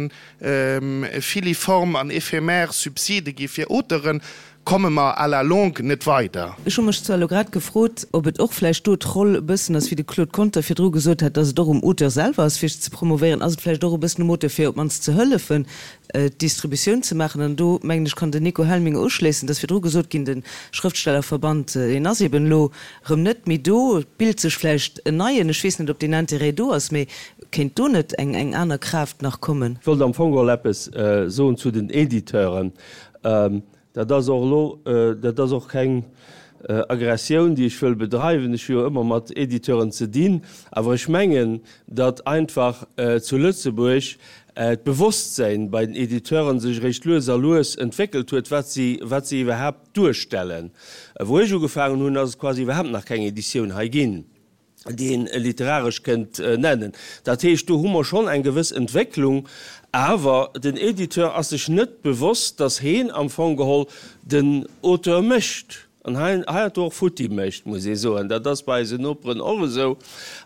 filiform an éphémère Subside gi fir Auteuren, komme mer à la longue net weider. Ech hu mech zwar elo grad gefrot, ob et och vläicht do d'Roll e bëssen ass, wéi de Claude Conter virdru gesot hat, dass et och um Auteur selwer ass, fir sech ze promovéieren. Ass et vläicht och e bëssen um Auteur, fir op d'mannst ze hëllefen, d'Distributioun ze maachen? An do, mengen ech, kann den Nico Helminger uschléissen. Et ass virdru gesot ginn, de Schrëftstellerverband, deen ass eben elo Rëm net méi do. Et bilt sech vläicht en neien. Ech weess net, ob deen Intérêt do ass, mee kéint do net eng eng aner Kraaft nach kommen? Ech wollt am Fong geholl eppes soen zu den Editeuren. Dat ass och elo, dat ass och keng Aggressioun, déi ech wëll bedreiwen. Ech hu jo ëmmer mat Editeuren ze dinn. Awer ech mengen, datt einfach zu Lëtzebuerg d'Bewosstsäin bei den Editeuren sech eréischt lues a lues entwéckelt huet, wat si, wat si iwwerhaapt Duerstellen. Wou ech ugefaangen hunn, ass et quasi iwwerhaapt nach keng Editioun hei ginn, déi een literaresch kënnt nennen. Dat heescht, do hu mer schonn eng gewëss Entwécklung, awer den Editeur ass sech net bewosst, datt heen am Fong geholl den Auteur mécht an heiansdo och futti mécht, muss ee soen. Dat ass bei eisen Noperen och esou.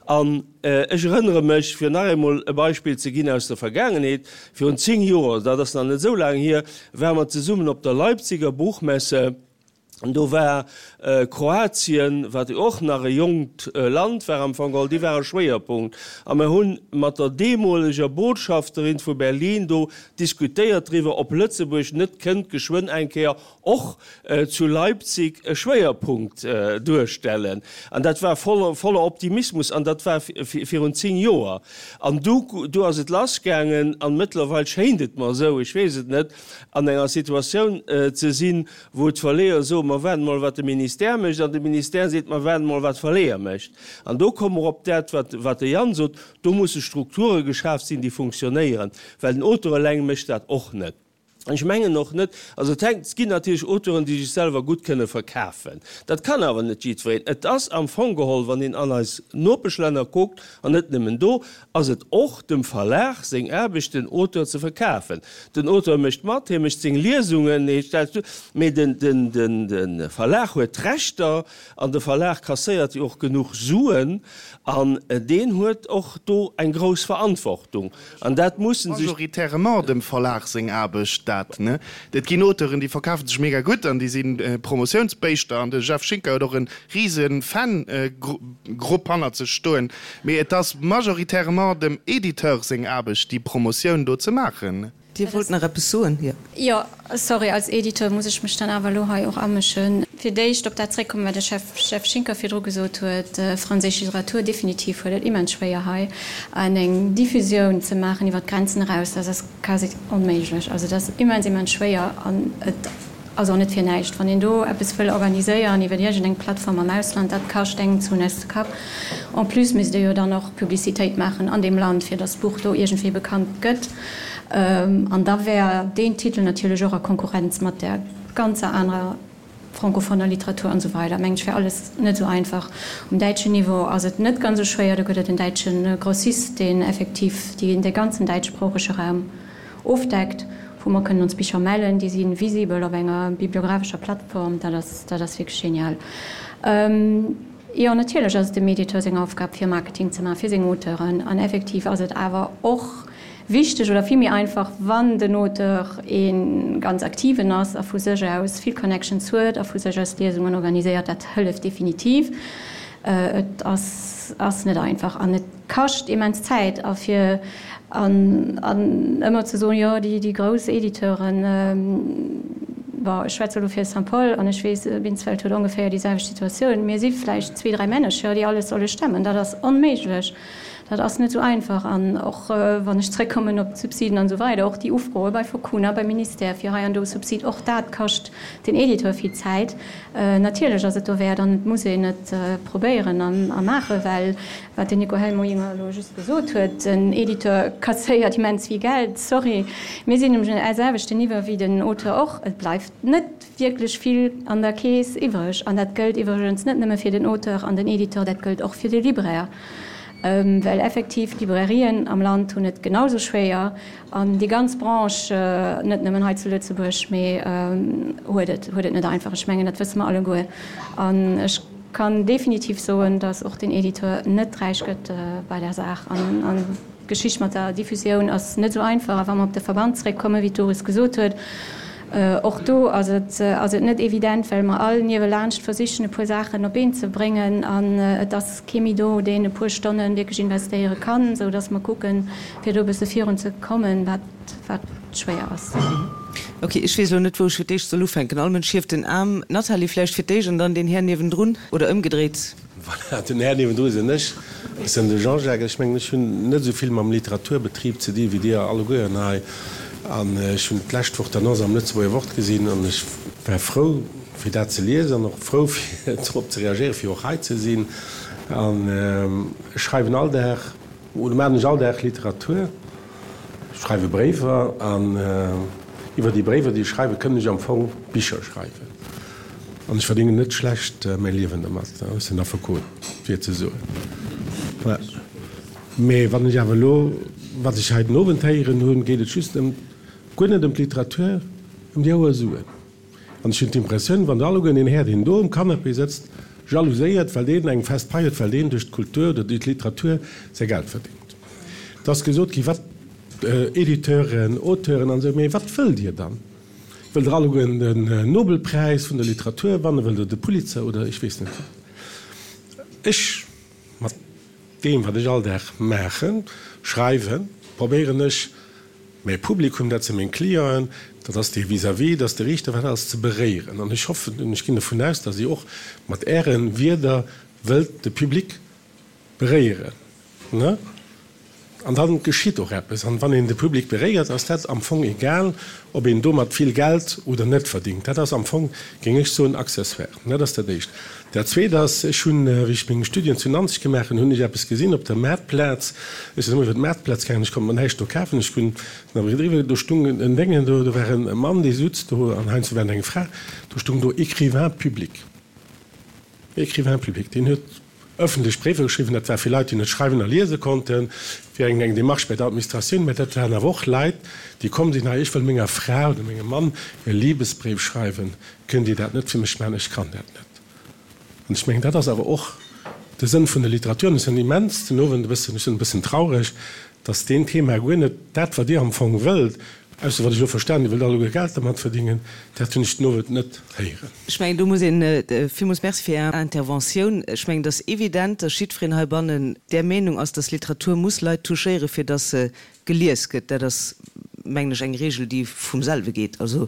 An ech erënnere mech, fir nach eemol e Beispill ze ginn aus der Vergaangenheet, Virun 10 Joer, dat ass nach net esou laang hier, ware mer zesummen op der Leipziger Buchmesse. Do war Kroatien, wat jo och nach e jonkt Land war am Fong geholl, déi ware Schwéierpunkt. A mer hu mat der deemoleger Botschafterin vu Berlin do diskutéiert driwwer, ob Lëtzebuerg net kënnt geschwënn eng Kéier och zu Leipzig e Schwéierpunkt duerstellen. An dat war voller Optimismus an dat war virun 10 Joer. An du, du ass et lassgaangen an mëttlerweil schéint et mer esou, ech weess et net, an enger Situatioun ze sinn, wou d'Verleeër soen, mer waarden mol wat de Ministère mécht an de Ministère seet, mer waarden mol wat d'Verleeër mécht. An do komme mer op dat, wat, wat de Yann sot, do musse Strukture geschaaft sinn, déi funktionéieren, well den Auteur eleng mécht dat och net. Ech mengen och net, also et hänkt, et ginn natierlech Auteuren, déi sech selwer gutt kënne verkafen. Dat kann awer net jiddwereen. Et ass am Fong geholl, wann een an eis Nopeschlänner kuckt, an net nëmmen do, ass et och dem Verlag seng Aarbecht, den Auteur ze verkafen. Den Auteur mécht mat, hie mécht seng Liesungen, hie stellt duer, mee den, den, den, de Verlag huet d'Rechter an de Verlag kasséiert jo och genuch Suen an deen huet och do eng grouss Verantwortung. An dat mussen sech. Majoritairement dem Verlag seng Aarbecht dat, ne? Et ginn Auteuren, déi verkafe sech mega gutt an déi si Promotiounsbéischter an de Jeff Schinker huet och e rise Fan-Grupp hannert sech stoen, mee et ass majoritairement dem Editeur seng Aarbecht, déi Promotioun do ze maachen. Dir wollt nach eppes soen? Jo. Jo, sorry, als Editeur muss ech mech dann awer elo hei och amëschen. Fir d'éischt op dat zréckkommen, wat de Chef, Jeff Schinker virdru gesot huet, Franséisch Literatur, definitiv huet et immens schwéier hei an eng Diffusioun ze maachen iwwer d'Grenzen eraus. Dat ass quasi onméiglech. Also dat ass immens, immens schwéier an et ass och net fir näischt. Wann een do eppes wëll organiséieren iwwer iergendeng Plattform am Ausland, dat kascht engem d'Suen aus de Kapp. En plus misst ee jo dann och Publicitéit maachen an deem Land, fir datt d'Buch do iergendwéi bekannt gëtt. An da wär deen Titel natierlech och a Konkurrenz mat där ganzer anerer francophoner Literatur an esou weider. Mengen ech wär alles net esou einfach. Um däitschen Niveau ass et net ganz esou schwéier, do gëtt et en däitsche Grossist, deen effektiv dee ganzen däitschsproochege Raum ofdeckt, wou mer kënnen ons Bicher mellen, déi si visibel op enger bibliographescher Plattform. Dat ass, dat ass wierklech genial. Jo, natierlech ass et dem Editeur seng Aufgab, fir Marketing ze maachen, fir seng Auteuren. An effektiv ass et awer och wichteg oder vill méi einfach, wann den Auteur ee ganz aktiven ass a vu sech aus vill Connections huet a vu sech aus Liesungen organiséiert. Dat hëlleft definitiv. Et ass ass net einfach an et kascht immens Zäit. A fir an an ëmmer ze soen, jo déi déi grouss Editeuren. Bon, ech schwätze elo fir Saint-Paul an ech weess, Binsfeld huet ongeféier déi selwecht Situatioun. Mir si vläicht zwee, dräi Männercher, déi alles solle stemmen. Dat ass onméiglech. Dat ass net esou einfach. An och wann ech zrëckkommen op d'Subsiden an esou weider, och déi Ufroe bei Focuna, beim Ministère fir hei an do Subsid, och dat kascht den Editeur vill Zäit. Natierlech ass et dowäert an et muss een et probéieren a maachen, well wat den Nico Helminger elo just gesot huet, den Editeur kasséiert immens vill Geld. Sorry, mir sinn um selwechten Niveau wéi den Auteur och. Et bleift net wierklech vill an der Keess iwwreg. An dat gëllt iwwregens net nëmme fir den Auteur an den Editeur, dat gëllt och fir de Libraire, well effektiv d'Librairien am Land hunn et genau sou schwéier an déi ganz Branche, net nëmmen hei zu Lëtzebuerg, mee huet et huet et net einfach. Ech mengen, dat wësse mer alleguer. An ech kann definitiv soen, datt och den Editeur net räich gëtt bei där Saach. An d'Geschicht mat der Diffusioun ass net esou einfach. A wa mer op de Verband zréckkommen, wéi d'Doris gesot huet, och do ass et ass et net evident, well mer all niewelaanscht versichen, e puer Saachen op Been ze bréngen. An et ass kee méi do, deen e puer Stonne wierklech investéiere kann, esou datt mer kucken, fir do e bësse virun ze kommen, wat wat schwéier ass. Ok, ech weess elo net, wou ech fir d'éischt soll ufänken. All Mënsch hieft den Aarm. Nathalie vläicht fir d'éischt an dann deen Här niewendrun, oder ëmgedréit. Voilà, den Här niewendru sinn ech. Ech sinn de Jean-Jacques. Ech mengen, ech hunn net esou vill mam Literaturbetrib ze di wéi Dir allegueren hei. An ech hunn d'lescht Woch d'Annonce am Lëtzebuerger Wort gesinn an ech war frou, fir dat ze liesen an och frou, fir drop ze reagéieren, fir och hei ze sinn. An ech schreiwen all Dag, oder maachen ech all Dag Literatur. Ech schreiwe Bréiwer an iwwer déi Bréiwer, déi ech schreiwen, kënnt ech am Fong Bicher schreiwen. An ech verdéngen net schlecht mäi Liewen domat. Ech sinn Affekot, fir ze soen. Mee wann ech awer elo, wat ech hei den Owend héieren hunn, geet et just ëm, guer net ëm d'Literatur, ëm déi houer Suen. An ech hunn d'Impressioun, wann der alleguer deen Här, deen do um Canapé sëtzt, jalouséiert, well deen eng fest Pai huet, well deen duerch d'Kultur oder duerch d'Literatur säi Geld verdéngt. Et ass gesot ginn, wat Editeuren, Auteuren an esou, mee wat wëllt Dir dann? Wëllt Der allegueren den Nobelpräis vun der Literatur wannen? Wëllt Der de Pulitzer oder ech weess net wat? Ech, mat deem, wat ech all Dag maachen, schreiwen, probéieren ech, Mäi Publikum, dat si meng Clienten, dat ass dee vis-à-vis, dat ass de Riichter, wat ass, ze beréieren. An ech hoffen an ech ginn dovun aus, datt Dir och mat Äre Wierder wëllt de Public beréieren. Ne? An da geschitt och eppes. An wann een de Public beréiert, ass dat am Fong egal, ob een domat vill Geld oder net verdingt. Dat ass am Fong, géing ech soen, accessoire. Dat ass dat Éischt. Dat Zweet ass, ech hunn, wéi ech meng Studien zu Nanzeg gemaach hunn, hunn ech eppes gesinn op der Maartplaz. Ech sinn ëmmer iwwer d'Maartplaz gaangen, ech konnt mer näischt do kafen. Ech hunn awer driwwer, do stung en Déngen, do, do war e Mann, dee sutz do, an heiansdo war et eng Fra, do stung do Écrivain public. Écrivain public. Deen huet ëffentlech Bréiwer geschriwwen, dat war fir Leit, déi net schreiwen a liese konnten, fir eng eng Démarche bei der Administratioun, mä dat waren awer och Leit, déi komm sinn, hei, ech wëll menger Fra oder mengem Mann e Libesbréif schreiwen, kënnt Dir dat net fir mech maachen, ech kann dat net. An ech mengen, dat ass awer och de Sënn vun der Literatur. An ech sinn immens den Owend e bëssen, ech sinn e bëssen traureg, dass deen Thema guer net dat, wat Dir am Fong wëllt, ausser wat ech elo verstan, Dir wëllt alleguer Geld dermat verdingen, dat hunn ech den Owend net héieren. Ech mengen, do muss een, villmools Merci fir Är Interventioun. Ech mengen, et ass evident, dass jiddwereen heibannen där Meenung ass, dass Literatur muss Leit touchéieren, fir dass se gelies gëtt. Dat ass, mengen ech, eng Regel, déi vum selwe geet. Also,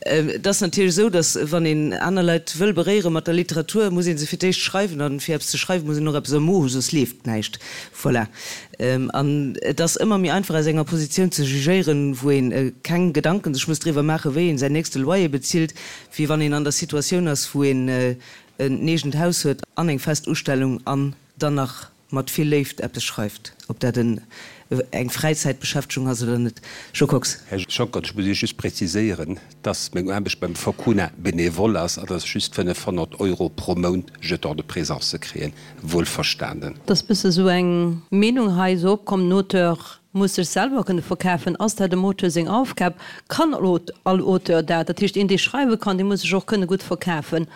et ass natierlech esou, dass, wann een aner Leit wëll beréiere mat der Literatur, muss ee se fir d'éischt schreiwen. An fir eppes ze schreiwen, muss een och eppes am Mo hu, soss leeft näischt. Voilà. An et ass ëmmer méi einfach, aus enger Positioun ze jugéieren, wou ee keng Gedanken sech muss driwwer maachen, wéi een säin nächste Loyer bezilt, wéi wann een an der Situatioun ass, wou een en eegent Haus huet an eng fest Ustellung an dann nach mat vill Léift eppes schreift, ob dat en eng Fräizäitbeschäftegung ass oder net. Jo Kox. Här Schonckert, ech muss Iech just präziséieren, dass meng Aarbecht beim Focuna bénévole ass a dass ech just 500 Euro pro Mount Jeton de présence kréien. Wuelverstanen. Et ass bësse sou eng Meenung hei esou opkomm, den Auteur muss sech selwer kënne verkafen. Ass dat dem Auteur seng Aufgab? Kann all Auteur dat? Dat heescht, een dee schreiwe kann, dee muss sech och kënne gutt verkafen.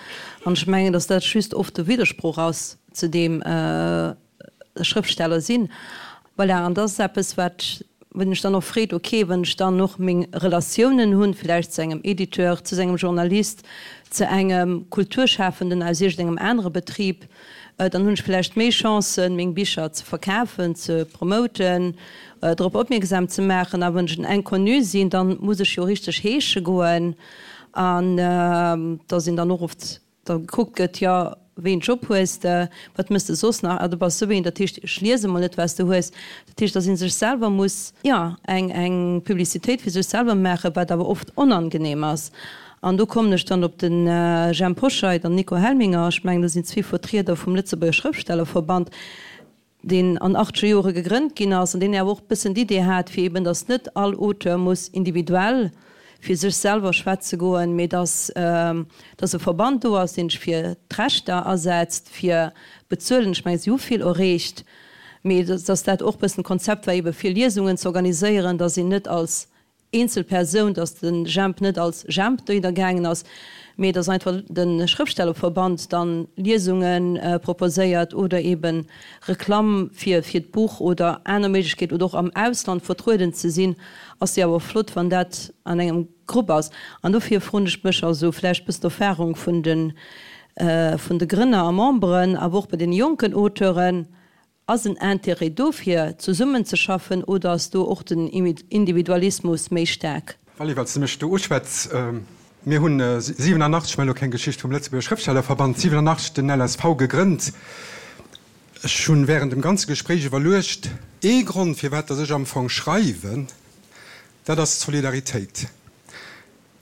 An ech mengen, datt dat just oft e Widdersproch ass zu deem Schrëftsteller sinn. Voilà, an dat ass eppes, wat, wou een sech dann och freet, ok, wann ech dann och meng Relatiounen hunn, vläicht zu engem Editeur, zu engem Journalist, zu engem Kulturschafenden aus iergendengem anere Betrib, dann hunn ech vläicht méi Chancen, meng Bicher ze verkafen, ze promoten, drop opmierksam ze maachen. A wann ech en Inconnu sinn, dann muss ech jo richteg heesche goen. An dass een dann och oft da gekuckt gëtt, jo, wéi een Job hues de, wat mëss de soss nach, ah du bass esou een, dat heescht ech liese mol net wat s de hues. Dat heescht, dass ee sech selwer muss, jo, eng eng Publicitéit fir sech selwer maachen, wat awer oft onangenehm ass. An do kommen ech dann op de Jhemp Hoscheit an Nico Helminger, ech mengen dat sinn zwee Vertrieder vum Lëtzebuerger Schrëftstellerverband, deen an achtzeger Jore gegrënnt ginn ass an deen awer och e bëssen d'Idee hat, fir eben, datt net all Auteur muss individuell fir sech selwer schwätze goen, mee datt, datt e Verband do ass, deen sech fir d'Rechter asetzt, fir bezuelen. Ech mengen, si hu vill erreecht, mee datt dat och e bëssen d'Konzept war, ebe fir Liesungen ze organiséieren, datt een net als eenzel Persoun, datt de Jemp net als Jemp dohinner gaangen ass, mee datt einfach de Schrëftstellerverband dann Liesunge proposéiert oder eben Reklamm fir fir d'Buch oder aner Méiglechkeet oder och am Ausland vertrueden ze sinn, ass jo awer flott, wann dat an engem Grupp ass. An dofir froen ech mech, also vläicht bëssen d'Erfahrung vun de vun de Grënner a Memberen, awer och bei deene jonken Auteuren, Ass en Intérêt do fir zesummen ze schaffen oder ass do och den Individualismus méi staark? Vally, well s de mech do uschwätz, Mir hunn 87, ech maachen elo keng Geschicht vum Lëtzebuerger Schrëftstellerverband, 87 den LSV gegrënnt. Ech hunn während dem ganze Gespréich iwwerluecht, ee Grond firwat datt ech am Fong schreiwen, dat ass d'Solidaritéit.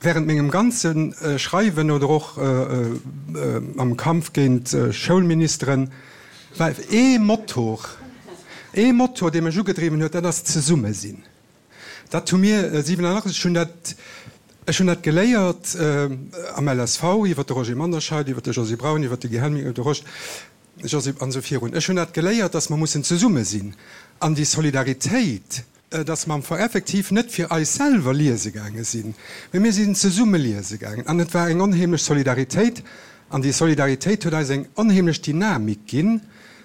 Während mengem ganze Schreiwen oder och am Kampf géint Schoulministeren war ee Motor, ee Motor, dee mech ugedriwwen huet, dat ass d'Zesummesinn. Dat hu mir 87, ech hunn dat, ech hunn dat geléiert am LSV iwwer de Roger Manderscheid, iwwer de Josy Braun, iwwer de Guy Helminger, de Rosch, Josy an esou virun. Ech hunn dat geléiert, dass mer mussen zesumme sinn an déi Solidaritéit, dass mer am Fong effektiv net fir eis selwer liese gaange sinn, mee mir sinn zesumme liese gaangen an et war eng onheemlech Solidaritéit an déi Solidaritéit huet eis eng onheemlech Dynamik ginn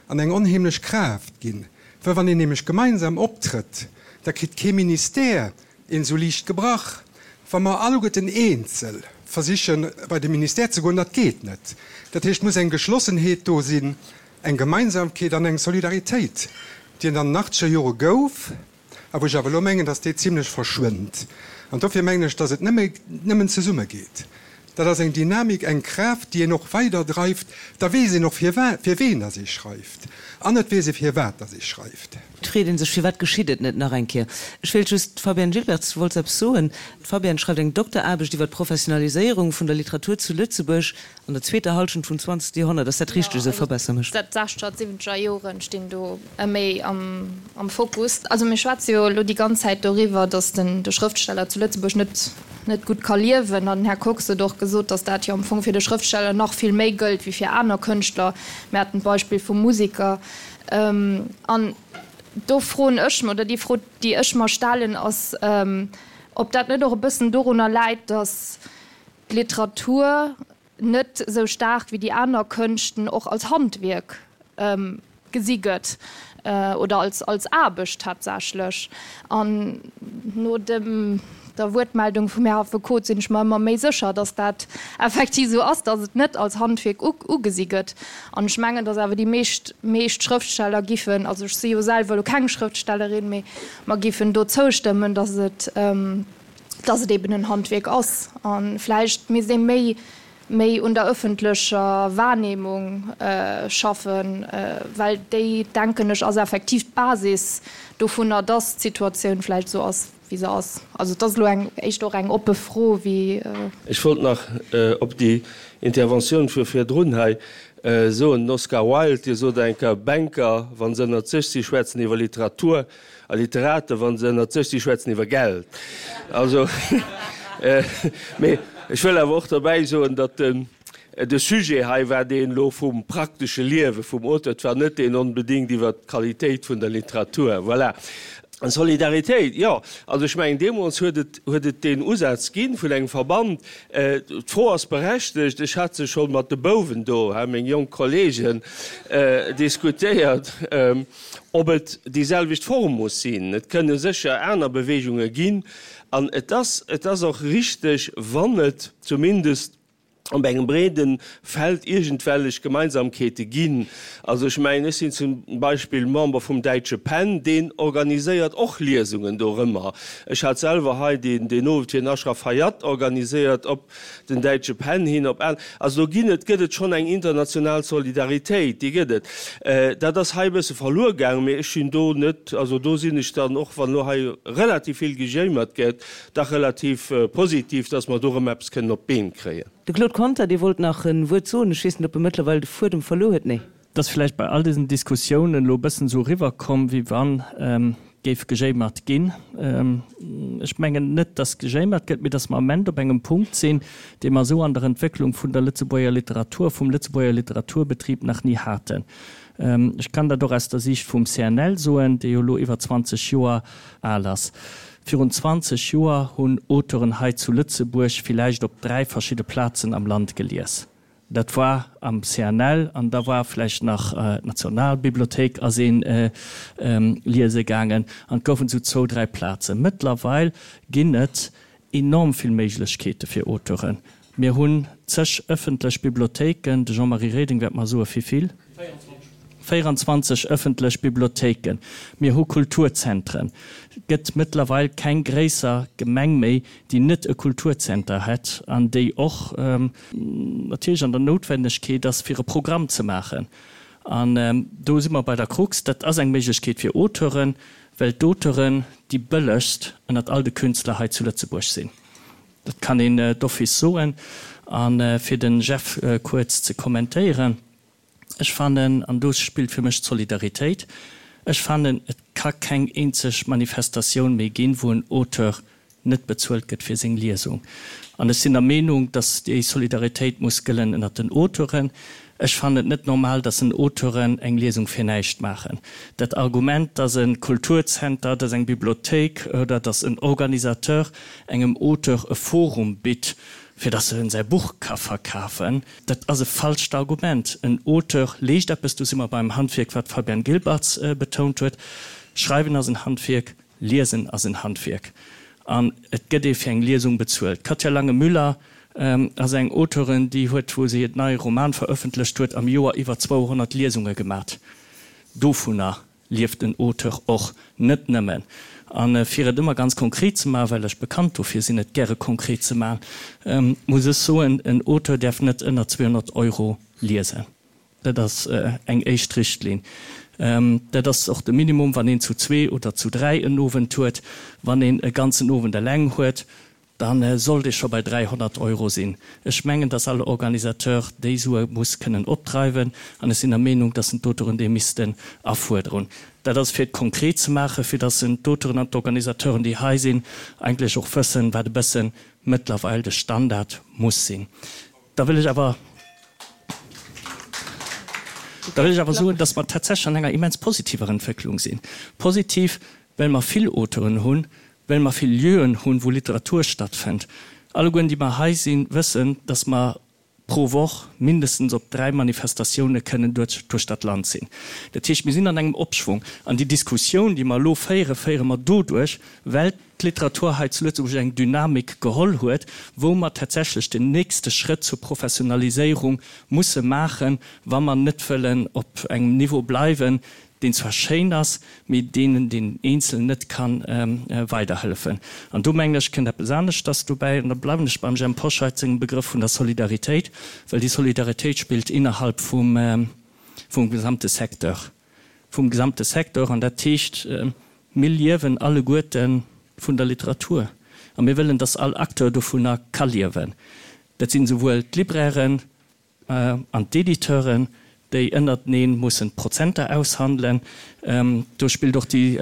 an eng onheemlech Kraaft ginn, well wann een nämlech gemeinsam optrëtt, da kritt kee Ministère een esou liicht gebrach. Wa mer alleguerten eenzel versichen, bei de Ministère ze goen, dat geet net. Dat heescht, et muss eng Geschlossenheet do sinn, Eng Gemeinsamkeet an eng Solidaritéit, déi et an den achtzeger Jore gouf, a wou ech awer elo mengen, datt déi zimlech verschwënnt. An dofir mengen ech, datt et nëmme, nëmmen zesumme geet. Dat ass eng Dynamik, eng Kraaft, déi een och weiderdreift. Da weess een och, fir wa, fir ween datt ee schreift. An et weess ee, firwat datt ee schreift. Et freet ee sech, firwat geschitt et net nach eng Kéier? Ech wéilt just, d'Fabienne Gilbertz, du wollts eppes soen. D'Fabienne schreift eng Dokteraarbecht iwwer d'Professionaliséierung vun der Literatur zu Lëtzebuerg. An der zweeter Halschent vum zwanzegste Joerhonnert, ass dat richteg esou? Verbesser mech. Jo, also d'sechzeger, d'siwwenzeger Joren stinn do méi am Fokus. Also mir schwätze jo elo déi ganz Zäit doriwwer, datt den de Schrëftsteller zu Lëtzebuerg net net gutt ka liewen. An den Här Kox huet och gesot, datt dat jo am Fong fir de Schrëftsteller nach vill méi gëllt wéi fir aner Kënschtler. Mir haten d'Beispill vum Musiker. An do froen ech mer, oder déi Fro, déi ech mer stellen, ass, ob dat net och e bëssen dorunner läit, datt d'Literatur net esou staark wéi déi aner Kënschten och als Handwierk gesi gëtt oder als als Aarbecht tatsächlech. An no dem der Wuertmeldung vum Här Affekot sinn ech mer ëmmer méi sécher, datt dat effektiv esou ass, datt et net als Handwierk ugesi gëtt. An ech mengen, datt awer déi meescht meescht Schrëftsteller giffen, also ech si jo selwer elo keng Schrëftstellerin, mee mer giffen do zoustëmmen, datt et, dass et eben en Handwierk ass a vläicht misst ee méi méi un der ëffentlecher Wahrnehmung schaffen, well déi, denken ech, ass effektiv d'Basis dovunner, dass d'Situatioun vläicht esou ass, wéi se ass. Also et ass elo eng éischter och eng oppe Fro wéi. Ech wollt nach op déi Interventioun vu virdrun hei soen. Den Oscar Wilde, dee sot eng Kéier, Banker, wa se ënnert sech si, schwätzen iwwer Literatur. A Literaten, wa se ënnert sech si, schwätzen iwwer Geld. Also, mee ech wëll awer och derbäi soen, datt den, de Sujet hei war deen elo vum praktesche Liewe vum Auteur, et war net deen onbedéngt iwwert d'Qualitéit vun der Literatur. Voilà. An Solidaritéit, jo, also ech mengen, deemools huet et, huet et deen Usaz gi vun engem Verband. D'Fro ass berechtegt, ech hat se scho mat de Bouwen do, meng jonk Kollegen, diskutéiert. Ob et déi selwecht Form muss sinn, et kënne sécher aner Beweegunge ginn. An et ass, et ass och richteg, wann et zumindest. Op engem breede Feld iergendwellech Gemeinsamkeete ginn. Also ech mengen, ech sinn zum Beispill Member vum Däitsche Pen, deen organiséiert och Liesungen dorëmmer. Ech hat selwer hei deen deen Owend fir den Ashraf Hayat organiséiert op den Däitsche Pen hin, op an. Also do ginn et, gëtt et schonn eng international Solidaritéit, déi gëtt et. Dat ass hei e bësse verluer gaangen, mee ech sinn do net, also do sinn ech dann, och wann elo hei relativ vill gejéimert gëtt, Dach relativ positiv, dass mer do erëm eppes kënnen op d'Been kréien. De Claude Conter, dee wollt nach e Wuert soen. Ech weess net, ob e mëttlerweil de Fuedem verluer huet. Nee. Et ass vläicht bei all diesen Diskussiounen elo e bëssen esou eriwwerkomm, wéi wann géif gejéimert ginn. Ech mengen net, dass gejéimert gëtt, mee dass mer am Ament op engem Punkt sinn, dee mer esou an der Entwécklung vun der Lëtzebuerger Literatur, vum Lëtzebuerger Literaturbetrib nach ni haten. Ech kann dat och aus der Siicht vum CNL soen, dee jo elo iwwer 20 Joer al ass. Virun 20 Joer hunn Auteuren hei zu Lëtzebuerg villäicht op 3 verschidde Plazen am Land gelies. Dat war am CNL an da war vläicht nach d'Nationalbibliothéik ass ee liese gaangen an et goufen esou zwou, dräi Plazen. Mëttlerweil ginn et enorm vill Méiglechkeete fir Auteuren. Mir hunn zeg ëffentlech Bibliothéiken, de Jean-Marie Reding wäert mer soe vivill, 24 ëffentlech Bibliothéiken, mir hu Kulturzentren. Et gëtt mëttlerweil keng gréisser Gemeng méi, déi net e Kulturzenter hätt an déi och natierlech an der Noutwennegkeet ass, fir e Programm ze maachen. An do si mer bei der Krux. Dat ass eng Méiglechkeet fir Auteuren, well d'Auteuren déi bëllegst ënnert all de Künstler hei zu Lëtzebuerg sinn. Dat kann een d'office soen. A fir de Jeff kuerz ze kommentéieren, Ech fannen, an do spillt fir mech d'Solidaritéit, ech fannen, et ka keng eenzeg Manifestatioun méi ginn, wou en Auteur net bezuelt gëtt fir seng Liesung. An ech sinn der Meenung, datt déi Solidaritéit muss gëllen ënnert den Auteuren. Ech fannen et net normal, dass en Auteuren eng Liesung fir näischt maachen. Dat Argument, dass e Kulturzenter, dass eng Bibliothéik oder dass en Organisateur engem Auteur e Forum bitt, fir dass en säi Buch ka verkafen, dat ass e falscht Argument. En Auteur leescht eppes, do si mer beim Handwierk, wat d'Fabienne Gilbertz betount huet. Schreiwen ass en Handwierk, Liesen ass en Handwierk an et gëtt ee fir eng Liesung bezuelt. D'Katja Lange-Müller ass eng Auteurin, déi huet, wou se hiert neie Roman verëffentlecht huet, am Joer iwwer 200 Liesunge gemat. Dovunner lieft en Auteur och net nëmmen. A fir et ëmmer ganz konkret ze maachen, well ech bekannt dofir sinn, et gäre konkret ze maachen, muss ech soen, en Auteur däerf net ënner 200 Euro liesen. Dat ass eng éischt Richtlinn. Dat ass och de Minimum, wann een zu zwee oder zu dräi en Owend huet. Wann een e ganzen Owend eleng huet, da sollt ee scho bei 300 Euro sinn. Ech mengen, dass all Organisateur déi Sue muss kënnen opdreiwen, an ech sinn der Meenung, dass en d'Auteuren déi missten afuerderen. Dat ass fir et konkret ze maachen, fir dass en d'Auteuren an d'Organisateuren, déi hei sinn, eigentlech och wëssen, wat e bësse mëttlerweil de Standard muss sinn. Da wëll ech awer, da wëll ech awer soen, dass mer tatsächlech an enger immens positiver Entwécklung sinn. Positiv, well mer vill Auteuren hunn, well mer vill Lieuen hunn, wou Literatur stattfënnt. Allegueren, déi mer hei sinn, wëssen, dass mer pro Woch mindestens op dräi Manifestatioune kënnen duerch dat Land sinn. Dat heescht, mir sinn an engem Opschwung. An déi Diskussioun, déi mer elo féieren, féiere mer doduerch, well d'Literatur hei zu Lëtzebuerg eng Dynamik geholl huet, wou mer tatsächlech den nächste Schrëtt zur Professionaliséierung musse maachen, wa mer net wëllen op engem Niveau bleiwen, deen zwar schéin ass, mee deen den Eenzelen net ka weiderhëllefen. An do, mengen ech, kënnt eppes aneschters dobäi, an da bleiwen ech beim Jhemp Hoscheit sengem Begrëff vun der Solidaritéit, well déi Solidaritéit spillt innerhalb vum gesamte Secteur, vum gesamte Secteur, an dat heescht, Mir liewen alleguerte vun der Literatur a mir wëllen, dass all Acteur dovunner ka liewen. Dat sinn esouwuel d'Librairen an d'Editeuren, déi ënnertenee mussen d'Prozenter aushandelen. Do spillt och déi,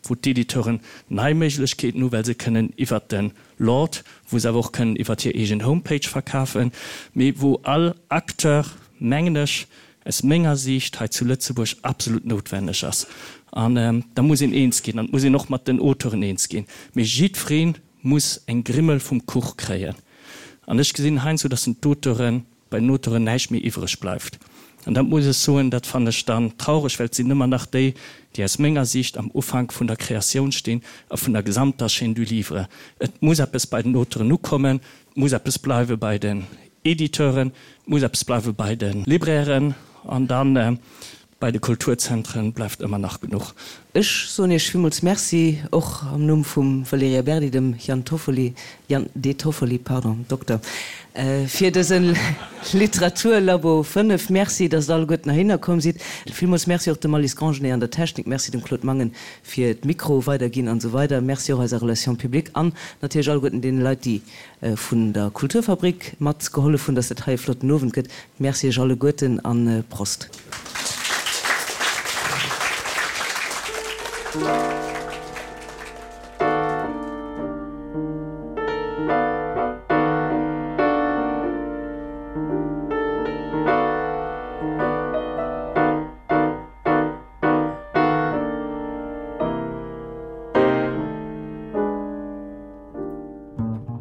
wou d'Editeuren nei Méiglechkeeten hu well se kënnen iwwert de Lord, wou se awer och kënnen iwwert hir eegen Homepage verkafen, mee wou all Acteur, mengen ech, aus menger Siicht hei zu Lëtzebuerg absolut noutwenneg ass. An da muss een eens ginn, an et muss een och mat den Auteuren eens ginn, mee jiddweree muss eng Grimmel vum Kuch kréien. An ech gesinn heiansdo, dass den d'Auteuren, bei den Auteuren näischt méi iwwreg bleift. An dat muss ech soen, dat fannen ech dann traureg, well et sinn ëmmer nach déi, déi aus menger Siicht am Ufank vun der Kreatioun stinn a vun der gesamter Chaîne du livre. Et muss eppes bei den Auteuren ukommen, et muss eppes bleiwe bei den. Editeuren, et muss eppes bleiwe bei de Librairen an dann bei de Kulturzentren bleift ëmmer nach genuch. Ech soen Iech villmools Merci, och am Numm vum Valerija Berdi, dem Jan Toffoli, Jan De Toffoli, pardon, Dokter, fir dëse Literaturlabo 5. Merci, dass Der alleguerten heihinner komm sidd. Villmools Merci och dem Alice Grangenet an der Technik. Merci dem Claude Mangen fir d'Mikro weiderginn an esou weider. Merci och eiser Relation publique an natierlech alleguerten deene Leit, déi vun der Kulturfabrik mat gehollef hunn, dass dat hei e flotten Owend gëtt. Merci Iech alleguerten an Prost.